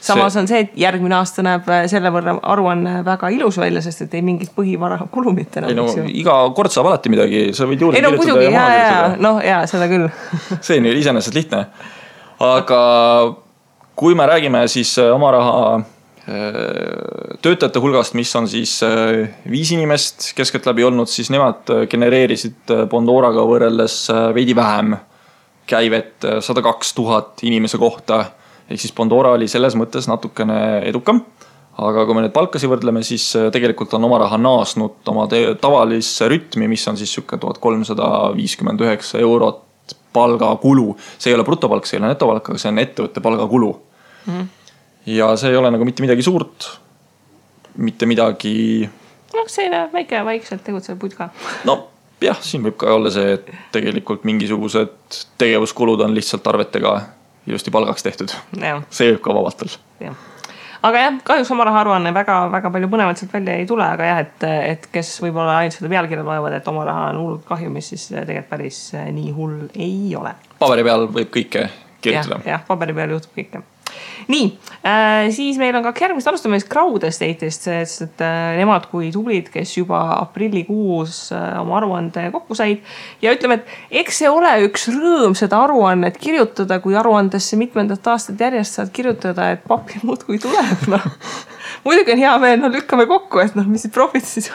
Samas on see, et järgmine aasta näeb selle võrra aruanne väga ilus välja, sest et ei mingit põhivara kulumit enam. Ei no, iga kord saab alati midagi, sa võid juurde kirjutada ja maha kirjutada. No jaa, seda küll. See on ju iseenesest lihtne. Aga kui me räägime siis oma raha töötajate hulgast, mis on siis 5 inimest keskeltläbi olnud, siis nemad genereerisid Bondoraga võrreldes veidi vähem käivet 102 000 inimese kohta. Ehk siis Bondora oli selles mõttes natukene edukam. Aga kui me need palkasi võrdleme, siis tegelikult on oma raha naasnud oma tavalisse rütmi, mis on siis 1359 eurot palgakulu. See ei ole brutopalk, see ei ole netopalk, aga see on ettevõtte palgakulu. Ja see ei ole nagu mitte midagi suurt, mitte midagi... No selline väikselt tegutsev putka. No jah, siin võib ka olla see, et tegelikult mingisugused tegevuskulud on lihtsalt arvetega ilusti palgaks tehtud. Ja. See võib ka vabalt olla. Aga jah, kahjuks oma raha aruanne väga palju põnevalt sealt välja ei tule, aga jah, et kes võib-olla ainult seda pealkirja loevad, et oma raha on hullult kahjumis, siis tegelikult päris nii hull ei ole. Paberi peal võib kõike kirjutada. Jah, paberi peal juhtub kõike. Nii, siis meil on ka järgmist alustame Crowd Estate'ist, sest nemad kui tublid, kes juba aprillikuus oma aruande kokku said ja ütleme, et eks see ole üks rõõm seda aruannet kirjutada, kui aruandesse mitmendat aastat järjest saad kirjutada, et pappi muud kui tuleb. No. Muidugi on hea meel, lükkame kokku, et mis siis profit siis,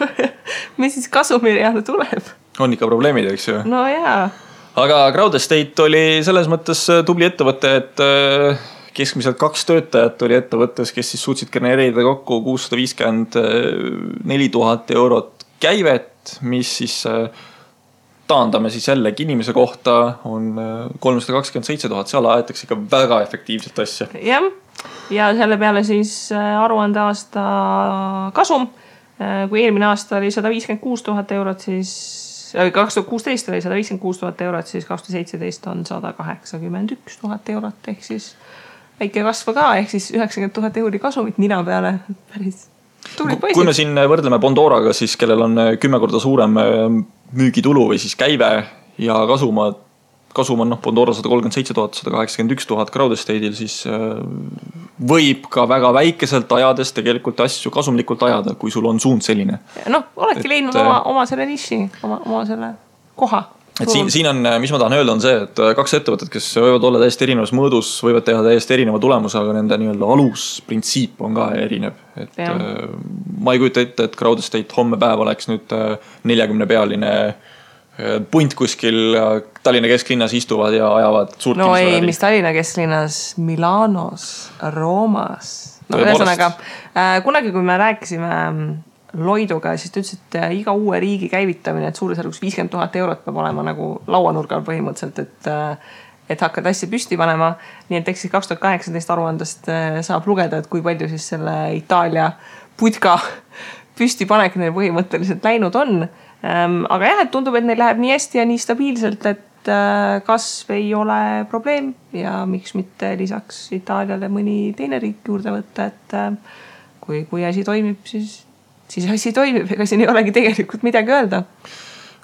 mis siis kasumiriana tuleb. On ikka probleemid, eks ju? No jaa. Aga Crowd Estate oli selles mõttes tubli ettevõte, et keskmiselt 2 töötajat oli ettevõttes, kes siis suutsid genereerida kokku 654 000 eurot käivet, mis siis taandame siis jällegi inimese kohta on 327 000, seal aetakse ikka väga efektiivselt asja. Jah, ja selle peale siis aruande aasta kasum, kui eelmine aasta oli 156 000 eurot, siis 2016 oli 156 000 eurot, siis 2017 on 181 000 eurot, ehk siis väike kasva ka, ehk siis 90 000 euri kasumit nina peale. Päris tuli poisid. Kui me siin võrdleme Bondoraga, siis kellel on 10 korda suurem müügitulu või siis käive ja kasum on Bondora 137 000, 181 000 Crowd Estate'il, siis võib ka väga väikeselt ajades tegelikult asju kasumlikult ajada, kui sul on suund selline. Oledki leidnud oma selle niši, oma selle koha. Et siin on, mis ma tahan öelda, on see, et 2 ettevõtted, kes võivad olla täiesti erinevas mõõdus, võivad teha täiesti erineva tulemuse, aga nende nii-öelda alusprintsiip on ka erinev. Et ma ei kujuta ette, et Crowd Estate homme päev oleks nüüd 40-pealine punt kuskil Tallinna kesklinnas istuvad ja ajavad suurt mis Tallinna kesklinnas, Milanos, Roomas, no ühesõnaga, kunagi kui me rääkisime Loiduga, siis ta ütles, et iga uue riigi käivitamine, et suurusjärgus 50 000 eurot peab olema nagu lauanurgal põhimõtteliselt, et hakkad asja püsti panema. Nii et eks siis 2018 aruandest saab lugeda, et kui palju siis selle Itaalia putka püsti panek neil põhimõtteliselt läinud on. Aga jah, et tundub, et neil läheb nii hästi ja nii stabiilselt, et kasv ei ole probleem ja miks mitte lisaks Itaaliale mõni teine riik juurde võtta, et kui asi toimib, siis asi toimib, ega siin ei olegi tegelikult midagi öelda.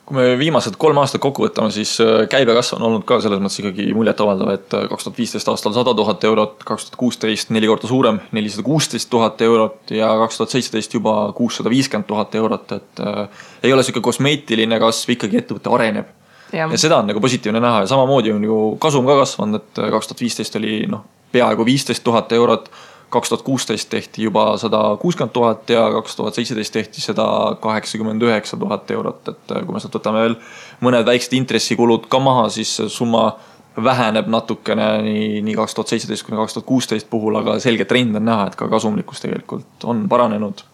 Kui me viimased 3 aastat kokku võtame, siis käibekasv on olnud ka selles mõttes ikkagi muljet avaldav, et 2015 aastal 100 000 eurot, 2016 4 korda suurem, 416 000 eurot ja 2017 juba 650 000 eurot, et ei ole selline kosmeetiline kasv, ikkagi ettevõte areneb. Ja seda on nagu positiivne näha ja samamoodi on ju kasum ka kasvanud, et 2015 oli peaaegu 15 000 eurot, 2016 tehti juba 160 000 ja 2017 tehti 189 000 eurot, et kui me sealt võtame veel mõned väiksed intressikulud ka maha, siis summa väheneb natukene nii 2017 kuni 2016 puhul, aga selge trend on näha, et ka kasumlikkus tegelikult on paranenud.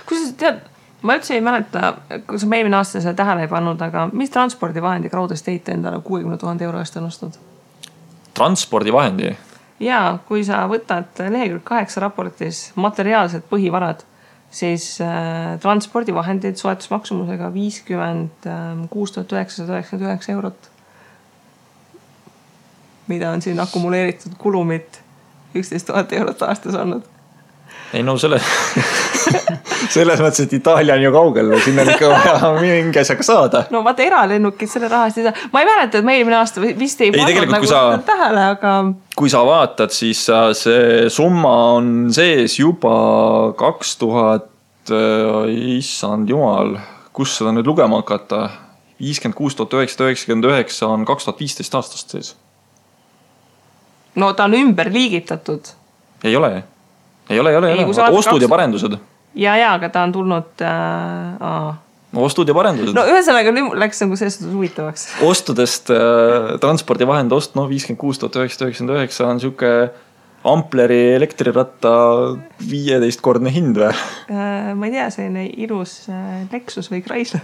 Kui sa tead, ma üldse ei mäleta, kui sa eelmine aasta seda tähele ei pannud, aga mis transpordivahendi Crowd Estate endale 60 000 euro eest on ostnud? Transpordivahendi? Ja kui sa võtad lehekülg 8 raportis materiaalsed põhivarad, siis transpordivahendid soetusmaksumusega 56 999 eurot, mida on siin akumuleeritud kulumit 11 000 eurot aastas olnud. Ei no selles mõttes, et Itaalia on ju kaugel, sinna on ikka vaja mingi asjaga saada. No vaata eralennukid selle rahast ei saa. Ma ei mäleta, et me eelmine aasta vist ei pannud nagu tähele, aga... Kui sa vaatad, siis see summa on sees juba 2000, issand jumal, kus seda nüüd lugema hakata? 56 999 on 2015 aastast sees. No ta on ümber liigitatud. Ei ole. Ostud ja parendused. Ja, aga ta on tulnud... Ostud ja parendused. No ühesõnaga läks nagu selles huvitavaks. Ostudest transpordivahend ost, 56 999 on siuke Ampleri elektriratta 15-kordne hind või? Ma ei tea, selline ilus Lexus või Chrysler.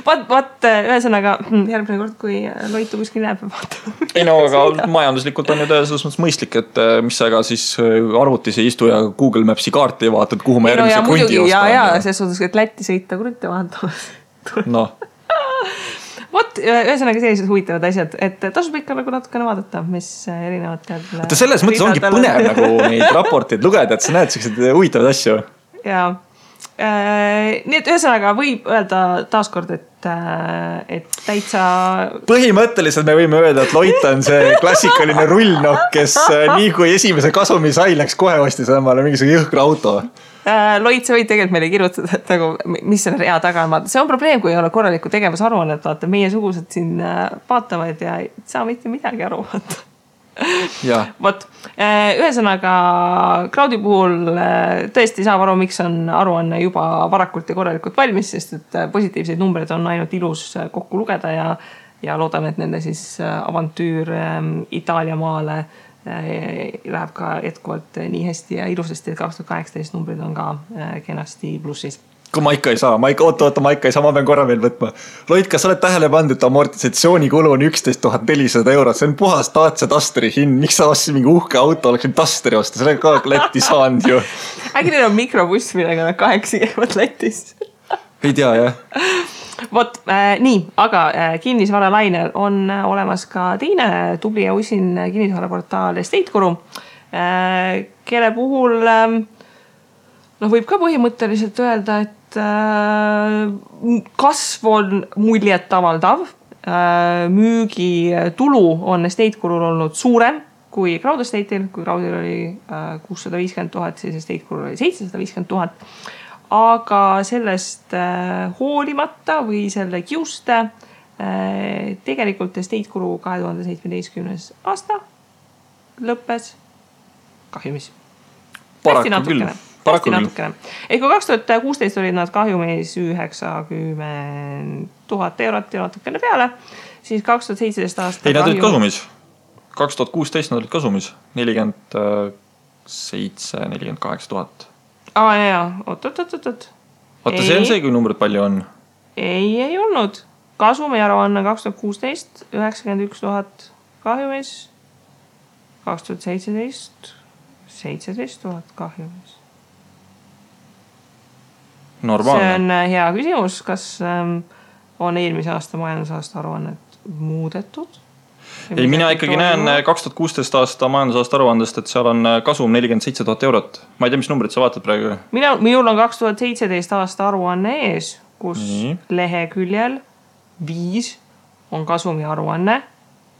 Vaat, ühesõnaga, järgmine kord, kui Loitu kuskil näeb, vaata. Ei no, aga majanduslikult on ju selles mõttes mõistlik, et mis sa ega siis arvutis ei istu ja Google Mapsi kaarti vaatad, kuhu ma järgmise krundi ostan. Ja, selles suhtes, et Lätti sõita krunte vaatamas. Noh. Vot, ühesõnaga sellised huvitavad asjad, et tasub ikka nagu natukene vaadata, mis erinevatel... Võtta selles mõttes ongi põnev nagu neid raporteid lugeda, et sa näed sellised huvitavad asju. Ja, nii et ühesõnaga võib öelda taaskord, et täitsa... Põhimõtteliselt me võime öelda, et Loit on see klassikaline rullnokk, kes nii kui esimese kasumi sai, läks kohe ostis omale mingisugune jõhkra auto. Loit, sa võid tegelikult meile kirjutada, et nagu, mis selle rea taga on. See on probleem, kui ei ole korralikku tegevusaruannet, vaata, meie sugused siin vaatavad ja ei saa mitte midagi aru vaata. Vot, ühesõnaga Crowdi puhul tõesti saab aru, miks on aruanne juba varakult ja korralikult valmis, sest et positiivseid numbreid on ainult ilus kokku lugeda ja loodan, et nende siis avantüür Itaalia maale läheb ka jätkuvalt nii hästi ja ilusasti, et 2018 numbrid on ka kenasti plussis. Kui ma ikka ei saa, ma pean korra veel võtma. Loit, kas sa oled tähele pandud, et amortisatsiooni-kulu on 11 400 eurot, see on puhas Dacia Dusteri hind, miks sa ostsid mingi uhke auto, oleks Dusteri osta, selle ka Lätti saanud ju. Äkki neil on mikrobuss, millega nad 8 käivad Lätis. Ei tea, jah. Vot, nii, aga kinnisvaralainel on olemas ka teine tubli ja usin kinnisvaraportaal Estate-Guru, kelle puhul võib ka põhimõtteliselt öelda, et kasv on muljet avaldav, müügitulu on Estate-Gurul olnud suurem kui Crowd Estate'il, kui Crowdil oli 650 000, siis Estate-Gurul oli 750 000. Aga sellest hoolimata või selle kiuste tegelikult Estate-Guru 2017 aasta lõppes kahjumis. Hästi natukene. Ehk kui 2016 olid nad kahjumis 90 000 eurot ja natukene peale, siis 2017 aasta... Ei, nad olid kasumis. 2016 nad olid kasumis. 48 000. Jaa, oot. Vaata, see on see, kui numbrid palju on. Ei olnud. Kasumiaruanne 2016, 91 000 kahjumis. 2017, 17 000 kahjumis. Normaalne. See on hea küsimus, kas on eelmise aasta majandusaasta aruannet muudetud? Ei, mina ikkagi näen 2016 aasta majandusaasta aruandest, et seal on kasum 47 000 eurot. Ma ei tea, mis numbrid sa vaatad praegu? Minul on 2017 aasta aruanne ees, kus leheküljel 5 on kasumi aruanne,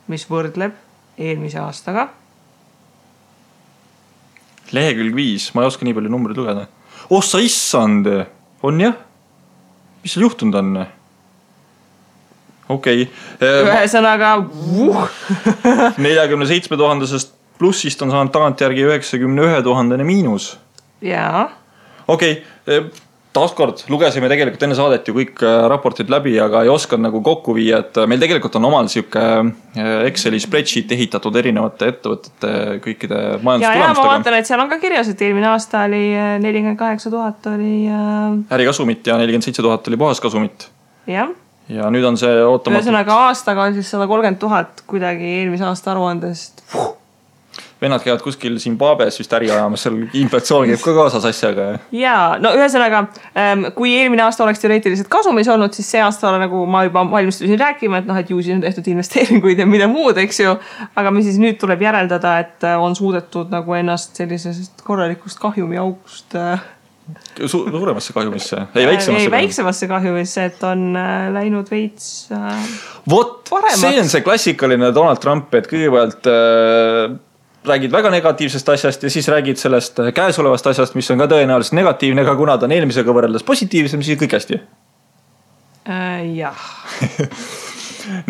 mis võrdleb eelmise aastaga. Lehekülg 5, ma ei oska nii palju numbrid lugeda. Sa issand, on jah? Mis seal juhtunud on? Okei. Ühesõnaga 47 000-sest plussist on saanud tagantjärgi 91 000 miinus. Jaa. Okei, taaskord lugesime tegelikult enne saadet ju kõik raportid läbi, aga ei oska nagu kokku viia, et meil tegelikult on omal siuke Exceli spreadsheet ehitatud erinevate ettevõtete kõikide majandustulemustega. Ma vaatan, et seal on ka kirjas, et eelmine aasta oli 48 000 oli... ärikasumit ja 47 000 oli puhaskasumit. Jah. Ja nüüd on see ootamatult... Ühesõnaga aastaga on siis 130 000 kuidagi eelmise aasta aruandest. Vennad käivad kuskil Zimbabwes vist äri ajamas, seal inflatsioon käib ka kaasas asjaga. Jaa, no ühesõnaga, kui eelmine aasta oleks teoreetiliselt kasumis olnud, siis see aasta nagu ma juba valmistusin rääkima, et ju siis on tehtud investeeringuid ja mida muud, eks ju. Aga me siis nüüd tuleb järeldada, et on suudetud nagu ennast sellisest korralikust kahjumi august... Suuremasse kahjumisse? Ei, väiksemasse kahjumisse, et on läinud veits paremaks. See on see klassikaline Donald Trump, et kõigepealt räägid väga negatiivsest asjast ja siis räägid sellest käesolevast asjast, mis on ka tõenäoliselt negatiivne, aga kuna ta on eelmisega võrreldes positiivsem, siis kõik hästi. Jah.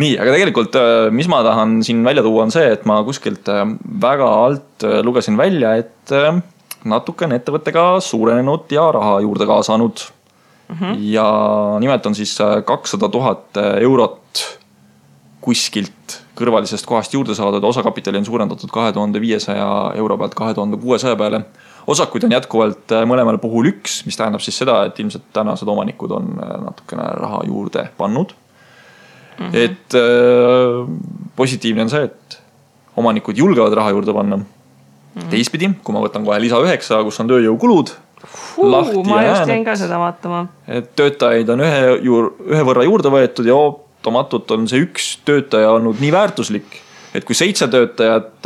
Nii, aga tegelikult, mis ma tahan siin välja tuua on see, et ma kuskilt väga alt lugesin välja, et natuke on ettevõttega suurenenud ja raha juurde kaasanud. Ja nimelt on siis 200 000 eurot kuskilt kõrvalisest kohast juurde saadud. Osakapitali on suurendatud 2500 euro pealt 2600 peale. Osakuid on jätkuvalt mõlemal puhul 1, mis tähendab siis seda, et ilmselt tänased omanikud on natukene raha juurde pannud. Et positiivne on see, et omanikud julgevad raha juurde panna. Teistpidi, kui ma võtan kohe lisa 9, kus on tööjõukulud, lahti ma ja just jäin ka seda vaatama. Et töötajaid on ühe võrra juurde võetud ja ootamatult on see 1 töötaja olnud nii väärtuslik, et kui 7 töötajat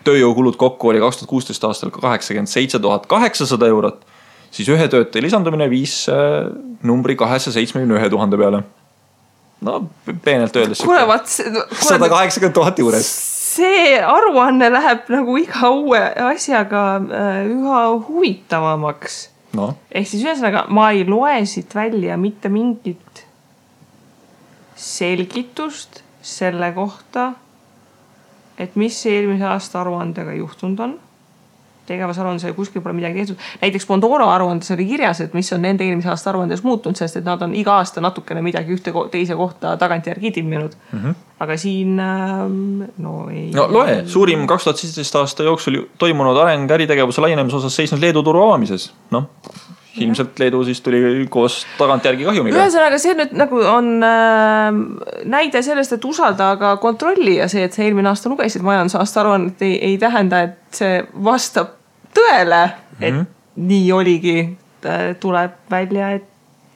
tööjõukulud kokku oli 2016 aastal 87 800 eurot, siis ühe töötaja lisandumine viis numbri 271 000 peale. No, peenelt öeldes 180 000 juures. See aruanne läheb nagu iga uue asjaga üha huvitavamaks. No. Ehk siis ühesõnaga, ma ei loe siit välja mitte mingit selgitust selle kohta, et mis eelmise aasta aruandega juhtunud on. Tegevusaruandes kuskil pole midagi tehtud. Näiteks Pandora aruandes oli kirjas, et mis on nende eelmise aasta aruandes muutunud, sest et nad on iga aasta natukene midagi ühte teise kohta tagantjärgi timminud. Aga siin ei... No loe, suurim 2017 aasta jooksul toimunud areng äritegevuse laienemise osas seisnud Leedu turu avamises. Ilmselt Leedu siis tuli koos tagantjärgi kahjumiga. Ühesõnaga, see nüüd nagu on näide sellest, et usalda aga kontrolli ja see, et see eelmine aasta lugesid majandusaasta aruannet ei tähenda, et see vastab tõele, et nii oligi, tuleb välja, et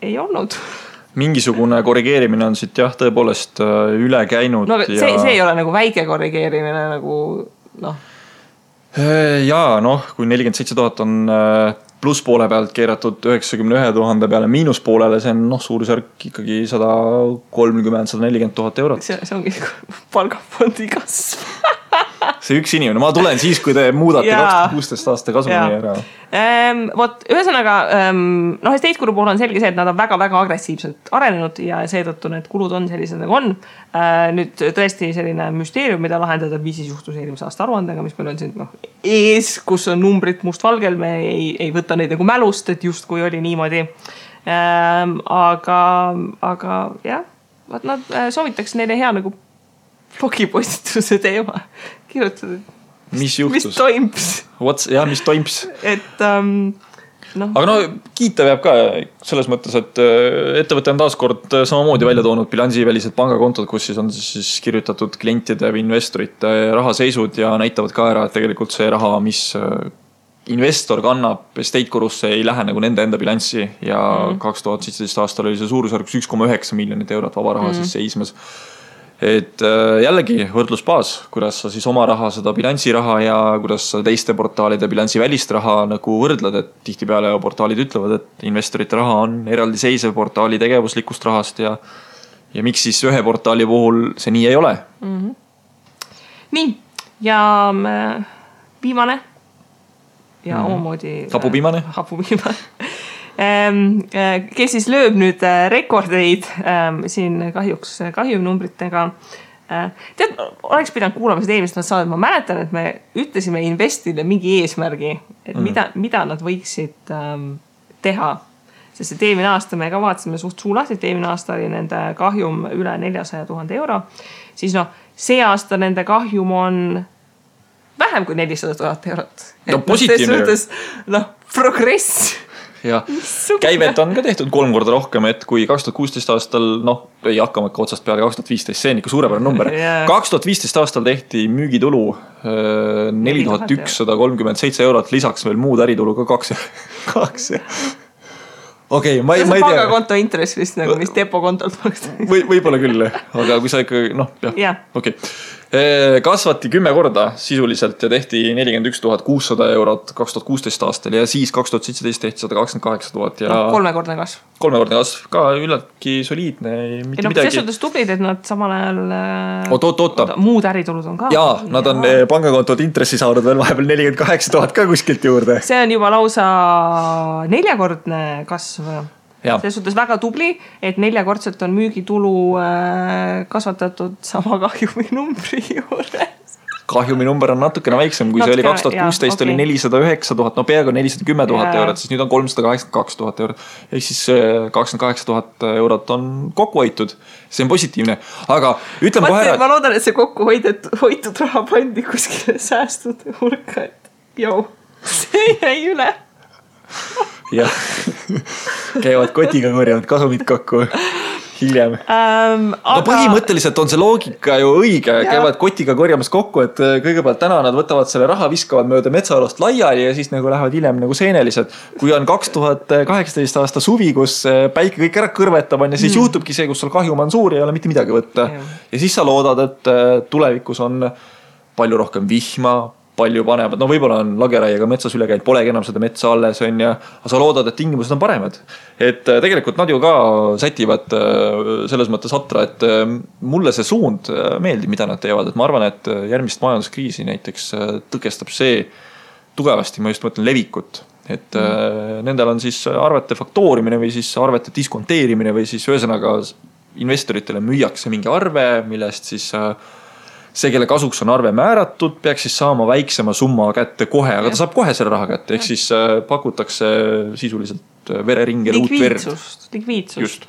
ei olnud. Mingisugune korrigeerimine on siit jah, tõepoolest üle käinud. No, see ei ole nagu väike korrigeerimine nagu Jaa, kui 47 000 on plusspoole pealt keeratud 91 000 peale miinuspoolele, see on suurusjärk ikkagi 130-140 000 eurot. See ongi palgafondi kasv. See 1 inimene. Ma tulen siis, kui te muudate 2016 aasta kasumi ära. Ühesõnaga, estate-kulu puhul on selge see, et nad on väga-väga agressiivselt arenenud ja seetõttu need kulud on sellised nagu on. Nüüd tõesti selline müsteerium, mida lahendada, mis siis juhtus eelmise aasta aruandega, mis meil on siin ees, kus on numbrid mustvalgel, me ei võta neid nagu mälust, et just kui oli niimoodi. Aga jah, nad soovitaks neile hea nagu blogipostituse teema kirjutada. mis juhtus? Mis toims? Mis toims? Et no. Aga no kiita peab ka selles mõttes, et ettevõte on taaskord samamoodi välja toonud bilansivälised pangakontod, kus siis on siis kirjutatud klientide või investorite rahaseisud ja näitavad ka ära, et tegelikult see raha, mis investor kannab estate korusse, ei lähe nagu nende enda bilanssi ja 2017 aastal oli see suurusjärgus 1,9 miljonit eurot vaba raha siis seismes. Et jällegi võrdlusbaas, kuidas sa siis oma raha, seda bilansiraha ja kuidas sa teiste portaalide bilansi välist raha nagu võrdled, et tihtipeale portaalid ütlevad, et investorite raha on eraldiseisev portaali tegevuslikust rahast ja miks siis ühe portaali puhul see nii ei ole. Nii, ja viimane ja omamoodi hapupiimane. Kes siis lööb nüüd rekordeid siin kahjuks kahjumnumbritega. Tead, oleks pidanud kuulama seda eelmist saadet. Ma mäletan, et me ütlesime Investile mingi eesmärgi, et mida nad võiksid teha. Sest et eelmine aasta me ka vaatasime suht suulas, et eelmine aasta oli nende kahjum üle 400,000 euro. Siis see aasta nende kahjum on vähem kui 400,000 eurot. No positiivne. Progress. Ja käivet on ka tehtud 3 korda rohkem, et kui 2016 aastal, ei hakkama otsast peale 2015, see on ikka suurepärane number. 2015 aastal tehti müügitulu 4137 eurot, lisaks veel muud äritulu ka 2. Okei, ma ei tea. See pangakonto intress vist nagu, mis depokontolt maksta. Võib-olla küll, aga kui sa ikka, okei. Kasvati 10 korda sisuliselt ja tehti 41,600 eurot 2016 aastal ja siis 2017 tehti 128,000 ja 3-kordne kasv. 3-kordne kasv, ka üllatki soliidne. Selles suhtes tublid, et nad samal ajal muud äritulud on ka. Jaa, nad on pangakontod intressi saanud veel vahepeal 48,000 ka kuskilt juurde. See on juba lausa 4-kordne kasv. Selles suhtes väga tubli, et 4-kordselt on müügitulu kasvatatud sama kahjumi numbri juures. Kahjumi number on natukene väiksem, kui see oli 2016 oli 409,000, peaaegu 410,000 eurot, siis nüüd on 382,000 eurot. Ehk siis 28,000 eurot on kokku hoitud. See on positiivne, aga ütleme kohe ära. Ma loodan, et see kokku hoitud raha pandi kuskile säästud hulka, et see jäi üle. Jah, käivad kotiga korjavad kasumid kokku hiljem. Aga põhimõtteliselt on see loogika ju õige, käivad kotiga korjamas kokku, et kõigepealt täna nad võtavad selle raha, viskavad mööda metsaalast laiali ja siis nagu lähevad hiljem nagu seenelised. Kui on 2018 aasta suvi, kus päike kõik ära kõrvetab on ja siis juhtubki see, kus sul kahjum on suur ja ei ole mitte midagi võtta. Ja siis sa loodad, et tulevikus on palju rohkem vihma, palju panevad, võib-olla on lageraiega metsas üle käinud, polegi enam seda metsa alles on ja sa loodad, et tingimused on paremad. Et tegelikult nad ju ka sätivad selles mõttes atra, et mulle see suund meeldib, mida nad teevad, et ma arvan, et järgmist majanduskriisi näiteks tõkestab see tugevasti, ma just mõtlen levikut, et nendel on siis arvete faktoorimine või siis arvete diskonteerimine või siis ühesõnaga investoritele müüakse mingi arve, millest siis see, kelle kasuks on arve määratud, peaks siis saama väiksema summa kätte kohe, aga ta saab kohe selle raha kätte, ehk siis pakutakse sisuliselt vereringi uut verd. Likviidsust.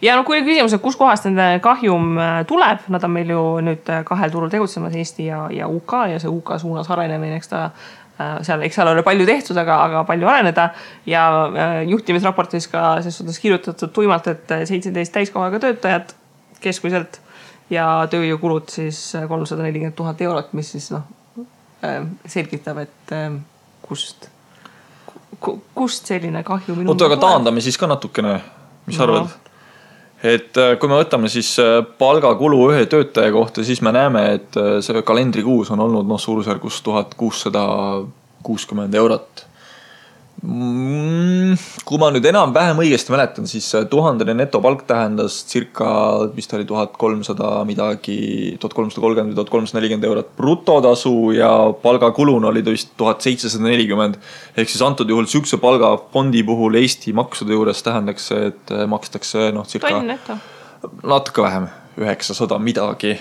Ja kui oli küsimus, et kus kohast nende kahjum tuleb, nad on meil ju nüüd 2 turul tegutsemas, Eesti ja UK ja see UK suunas arenemine, eks seal ole palju tehtud, aga palju areneda ja juhtimisraportis ka selles suhtes kirjutatud tuimalt, et 17 täiskohaga töötajad keskmiselt ja tööjõukulud siis 340,000 eurot, mis siis selgitab, et kust selline kahju minu. Aga taandame siis ka natukene, mis arvad? Et kui me võtame siis palgakulu ühe töötaja kohta, siis me näeme, et see kalendrikuus on olnud suurusjärgus 1660 eurot. Kui ma nüüd enam-vähem õigesti mäletan, siis 1000 netopalk tähendas circa, vist oli 1300 midagi, 1330 või 1340 eurot brutotasu ja palgakulun oli vist 1740. Ehk siis antud juhul sükse palgafondi puhul Eesti maksude juures tähendaks, et makstakse circa natuke vähem, 900 midagi.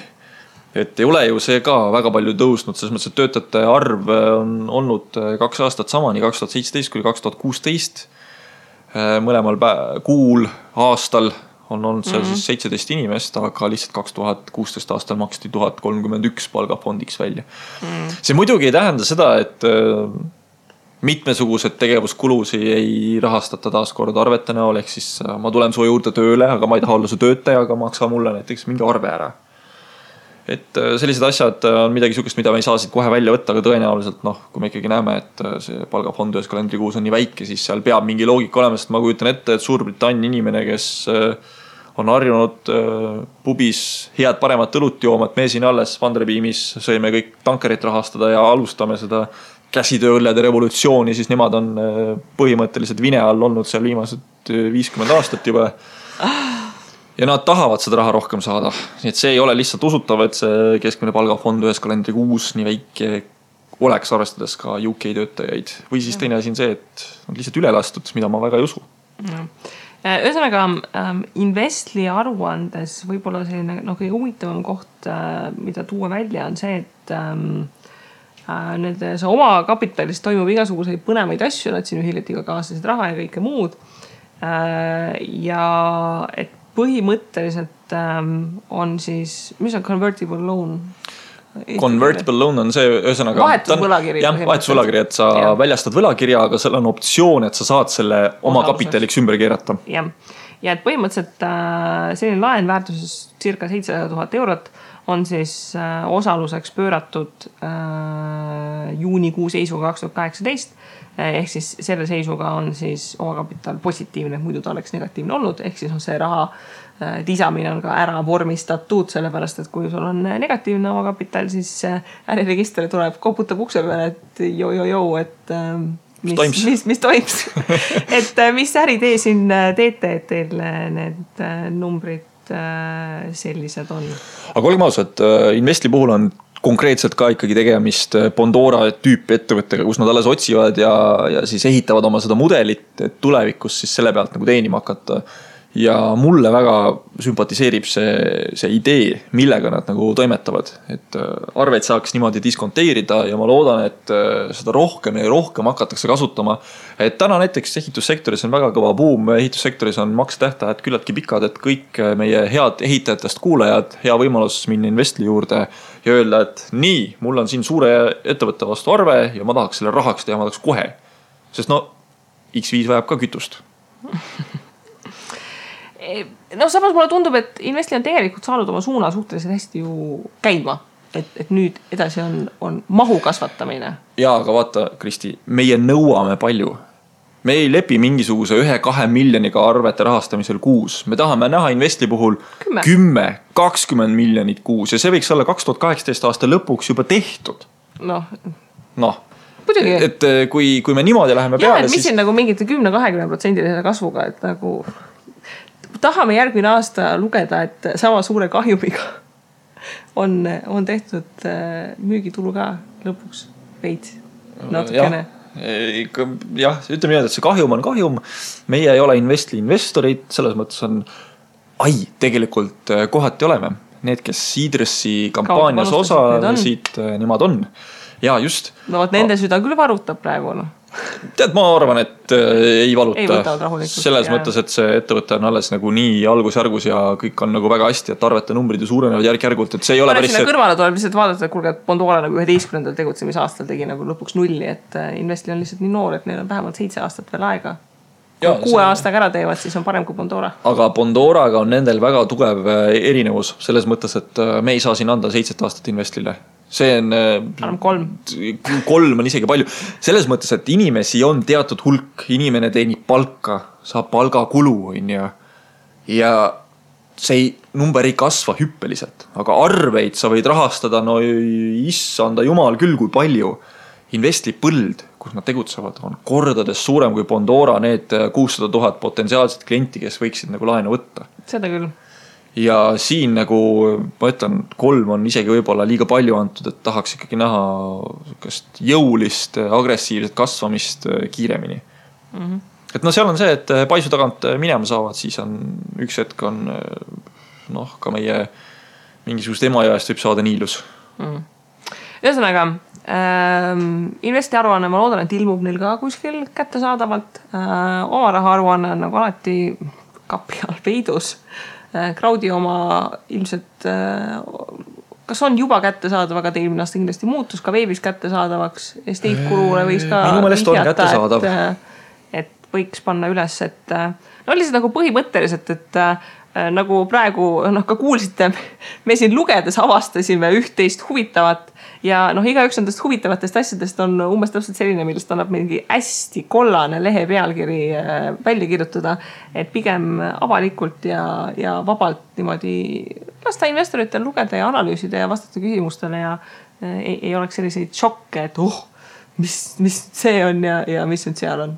Et ei ole ju see ka väga palju tõusnud, selles mõttes, et töötajate arv on olnud 2 aastat sama, nii 2017 kui 2016. Mõlemal kuul aastal on olnud seal siis 17 inimest, aga lihtsalt 2016 aastal maksti 1031 palgafondiks välja. See muidugi ei tähenda seda, et mitmesugused tegevuskulusi ei rahastata taaskord arvete näol, ehk siis ma tulen su juurde tööle, aga ma ei taha olla su töötaja, aga maksa mulle näiteks mingi arve ära. Et sellised asjad on midagi sukest, mida me ei saa siit kohe välja võtta, aga tõenäoliselt kui me ikkagi näeme, et see palgafond ühes kalendrikuus on nii väike, siis seal peab mingi loogika olema, sest ma kujutan ette, et Suurbritannia inimene, kes on harjunud pubis head paremat õlut jooma, et me siin alles Vanderbeamis sõime kõik tankerit rahastada ja alustame seda käsitööõllede revolutsiooni, siis nemad on põhimõtteliselt vine all olnud seal viimased 50 aastat juba. Ja nad tahavad seda raha rohkem saada. Nii et see ei ole lihtsalt usutav, et see keskmine palgafond ühes kalendrikuus nii väike oleks, arvestades ka UK töötajaid. Või siis teine asi on see, et on lihtsalt üle lastud, mida ma väga ei usu. Ühesõnaga, Investli aruandes võib-olla selline kõige huvitavam koht, mida tuua välja, on see, et see oma kapitalis toimub igasuguseid põnevaid asju, nad siin hiljuti ka kaasasid raha ja kõike muud. Ja et põhimõtteliselt on siis, mis on convertible loan? Convertible loan on see, ühesõnaga vahetusvõlakiri. Jah, vahetusvõlakiri, et sa väljastad võlakirja, aga seal on optsioon, et sa saad selle oma kapitaliks ümber keerata. Ja et põhimõtteliselt selline laen väärtuses circa 700 000 eurot on siis osaluseks pööratud juunikuu seisuga 2018. Ehk siis selle seisuga on siis omakapital positiivne, muidu ta oleks negatiivne olnud. Ehk siis on see raha lisamine on ka ära vormistatud, sellepärast, et kui sul on negatiivne omakapital, siis äriregistri tuleb, koputab ukse peale, et et mis toims. Et mis äritee siin teete, et teil need numbrid sellised on? Aga olgem ausad, Investli puhul on konkreetselt ka ikkagi tegemist Bondora tüüpi ettevõttega, kus nad alles otsivad ja siis ehitavad oma seda mudelit, et tulevikus siis selle pealt nagu teenima hakata. Ja mulle väga sümpatiseerib see idee, millega nad nagu toimetavad, et arveid saaks niimoodi diskonteerida ja ma loodan, et seda rohkem ja rohkem hakatakse kasutama. Et täna näiteks ehitussektoris on väga kõva buum, ehitussektoris on maksetähtajad küllaltki pikad, et kõik meie head ehitajatest kuulajad, hea võimalus minna Investli juurde ja öelda, et nii, mul on siin suure ettevõtte vastu arve ja ma tahaks selle rahaks teha, ma tahaks kohe. Sest X5 vajab ka kütust. Samas mulle tundub, et Investli on tegelikult saanud oma suuna suhteliselt hästi ju käima. Et nüüd edasi on mahu kasvatamine. Jaa, aga vaata, Kristi, meie nõuame palju. Me ei lepi mingisuguse 1-2 miljoniga arvete rahastamisel kuus. Me tahame näha Investli puhul 10-20 miljonit kuus ja see võiks olla 2018 aasta lõpuks juba tehtud. Muidugi. Et kui me niimoodi läheme peale, siis... Mis on nagu mingite 10-20% kasvuga, et nagu... Tahame järgmine aasta lugeda, et sama suure kahjumiga on tehtud müügitulu ka lõpuks veid natukene. Jah, ütleme nii, et see kahjum on kahjum. Meie ei ole Investli investorid, selles mõttes on, tegelikult kohati oleme. Need, kes Seedressi kampaanias osalesid, nemad on. Ja just. Nende süda küll varutab praegu, Tead, ma arvan, et ei valuta. Rahulikult, selles mõttes, et see ettevõte on alles nagu nii algusjärgus ja kõik on nagu väga hästi, et arvete numbrid ju suurenevad järk-järgult, et see ei ole päris... Kõrvale tuleb lihtsalt vaadata, et kuulge, et Bondora nagu 11. tegutsemisaastal tegi nagu lõpuks nulli, et Investli on lihtsalt nii noor, et neil on vähemalt 7 aastat veel aega. Kui 6 aastaga ära teevad, siis on parem kui Bondora. Aga Bondoraga on nendel väga tugev erinevus selles mõttes, et me ei saa siin anda 7 aastat Investlile. See on... 3 on isegi palju. Selles mõttes, et inimesi on teatud hulk, inimene teenib palka, saab palgakulu ja see number ei kasva hüppeliselt, aga arveid sa võid rahastada, issanda jumal küll, kui palju. Investli põld, kus nad tegutsevad, on kordades suurem kui Bondora need 600 000 potentsiaalset klienti, kes võiksid nagu laenu võtta. Seda küll. Ja siin nagu, ma ütlen, 3 on isegi võib-olla liiga palju antud, et tahaks ikkagi näha jõulist, agressiivset kasvamist kiiremini. Et seal on see, et paisu tagant minema saavad, siis on üks hetk on ka meie mingisugust emajääst võib saada niilus. Ühesõnaga, Investi aruanne, ma loodan, et ilmub neil ka kuskil kätte saadavalt. Oma raha aruanne on nagu alati kapi all peidus. Crowdi oma ilmselt kas on juba kättesaadav, aga eelmine aasta kindlasti muutus ka veebis kättesaadavaks. Estate Guruule võiks ka minu meelest on kättesaadav. Et võiks panna üles, et no lihtsalt nagu põhimõtteliselt, et nagu praegu ka kuulsite, me siin lugedes avastasime üht-teist huvitavat ja igaüks nendest huvitavatest asjadest on umbes täpselt selline, millest annab mingi hästi kollane lehe pealkiri välja kirjutada, et pigem avalikult ja vabalt niimoodi lasta investoritel lugeda ja analüüsida ja vastata küsimustele ja ei oleks selliseid šokke, et mis see on ja mis nüüd seal on.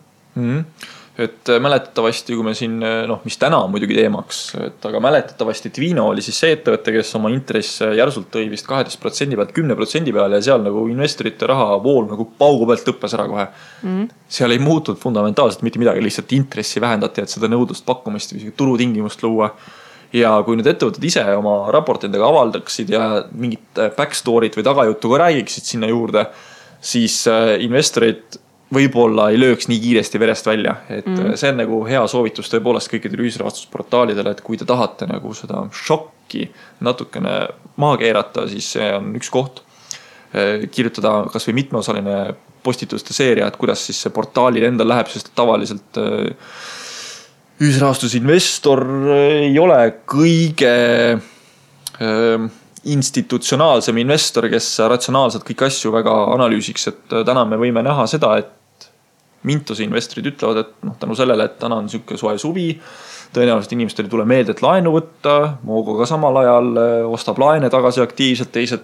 Et mäletatavasti, kui me siin, mis täna on muidugi teemaks, aga mäletatavasti Twino oli siis see ettevõte, kes oma intress järsult tõi vist 12% pealt 10% peale ja seal nagu investorite raha vool nagu paugu pealt lõppes ära kohe. Seal ei muutud fundamentaalselt mitte midagi, lihtsalt intressi vähendati, et seda nõudlust pakkumist või turutingimust luua. Ja kui nüüd ettevõtted ise oma raportidega avaldaksid ja mingit backstory't või tagajuttu ka räägiksid sinna juurde, siis investorid võib-olla ei lööks nii kiiresti verest välja, et see on nagu hea soovitus tõepoolest kõikidele ühisrahastusportaalidele, et kui te tahate nagu seda šokki natukene maha keerata, siis see on üks koht. Kirjutada kas või mitmeosaline postituste seeria, et kuidas siis see portaalil endal läheb, sest tavaliselt ühisrahastusinvestor ei ole kõige institutsionaalsem investor, kes ratsionaalselt kõik asju väga analüüsiks, et täna me võime näha seda, et Mintuse investorid ütlevad, et tänu sellele, et täna on niisugune soe suvi, tõenäoliselt inimestel ei tule meelde, et laenu võtta, Moogo ka samal ajal ostab laene tagasi aktiivselt, teised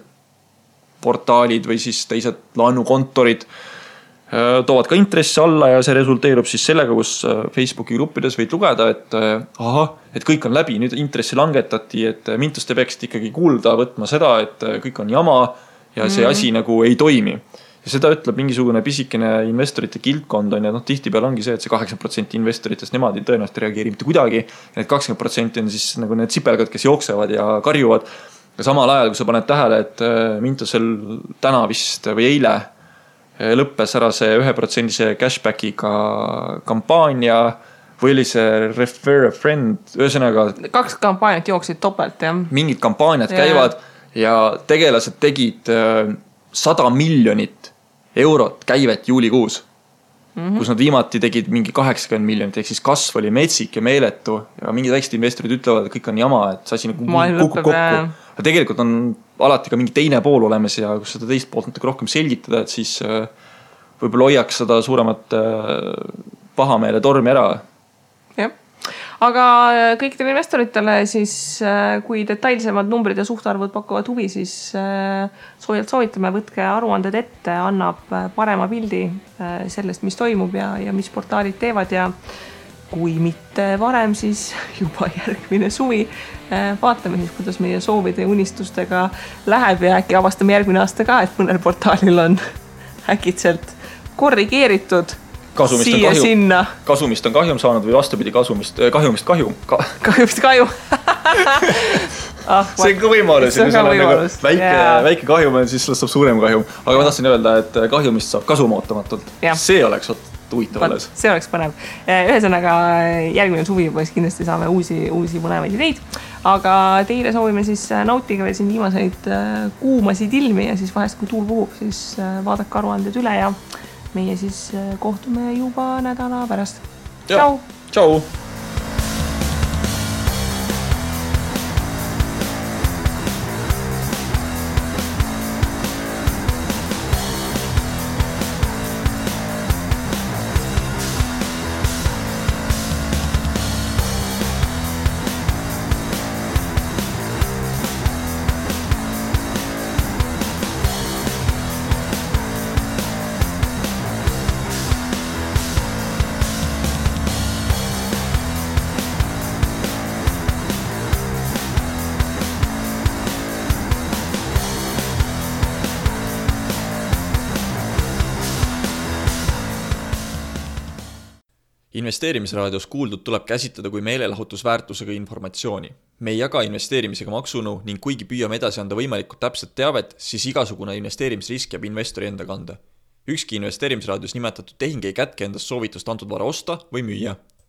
portaalid või siis teised laenukontorid toovad ka intressi alla ja see resulteerub siis sellega, kus Facebooki gruppides võid lugeda, et kõik on läbi, nüüd intressi langetati, et Mintus te peaksid ikkagi kuulda võtma seda, et kõik on jama ja see asi nagu ei toimi. Ja seda ütleb mingisugune pisikene investorite kildkond on ja tihtipeale ongi see, et see 80% investoritest nemad ei tõenäoliselt reageeri mitte kuidagi. Ja need 20% on siis nagu need sipelgad, kes jooksevad ja karjuvad. Ja samal ajal, kui sa paned tähele, et Mintusel täna vist või eile lõppes ära see 1% cashbackiga kampaania või oli see refer a friend, ühesõnaga 2 kampaaniat jooksid topelt, jah. Mingid kampaaniad käivad ja tegelased tegid 100 miljonit eurot käivet juulikuus, kus nad viimati tegid mingi 80 miljonit, ehk siis kasv oli metsik ja meeletu ja mingid väiksed investorid ütlevad, et kõik on jama, et see asi nagu kukub kokku. Ja tegelikult on alati ka mingi teine pool olemas ja kus seda teist poolt natuke rohkem selgitada, et siis võib-olla hoiaks seda suuremat pahameele tormi ära. Jah. Aga kõikidele investoritele siis, kui detailsemad numbrid ja suhtarvud pakuvad huvi, siis soovitame, võtke aruanded ette, annab parema pildi sellest, mis toimub ja mis portaalid teevad ja kui mitte varem, siis juba järgmine suvi. Vaatame siis, kuidas meie soovide ja unistustega läheb ja äkki avastame järgmine aasta ka, et mõnel portaalil on äkitselt korrigeeritud kasumist on kahjum saanud või vastupidi kahjumist kahjum. Kahjumist kahjum. See on ka võimalus. Väike kahjum on, siis saab suurem kahjum. Aga ma tahtsin öelda, et kahjumist saab kasum ootamatult. See oleks huvitav alles. See oleks põnev. Ühesõnaga järgmine suvi juba kindlasti saame uusi põnevaid ideid. Aga teile soovime siis nautige veel siin viimaseid kuumasid ilmi ja siis vahest kui tuul puhub, siis vaadake aruanded üle ja meie siis kohtume juba nädala pärast. Tšau! Tšau! Investeerimisraadios kuuldud tuleb käsitleda kui meelelahutusväärtusega informatsiooni. Me ei jaga investeerimisega maksunu ning kuigi püüame edasi anda võimalikult täpset teavet, siis igasugune investeerimisrisk jääb investori enda kanda. Ükski investeerimisraadios nimetatud tehing ei kätke endast soovitust antud vara osta või müüa.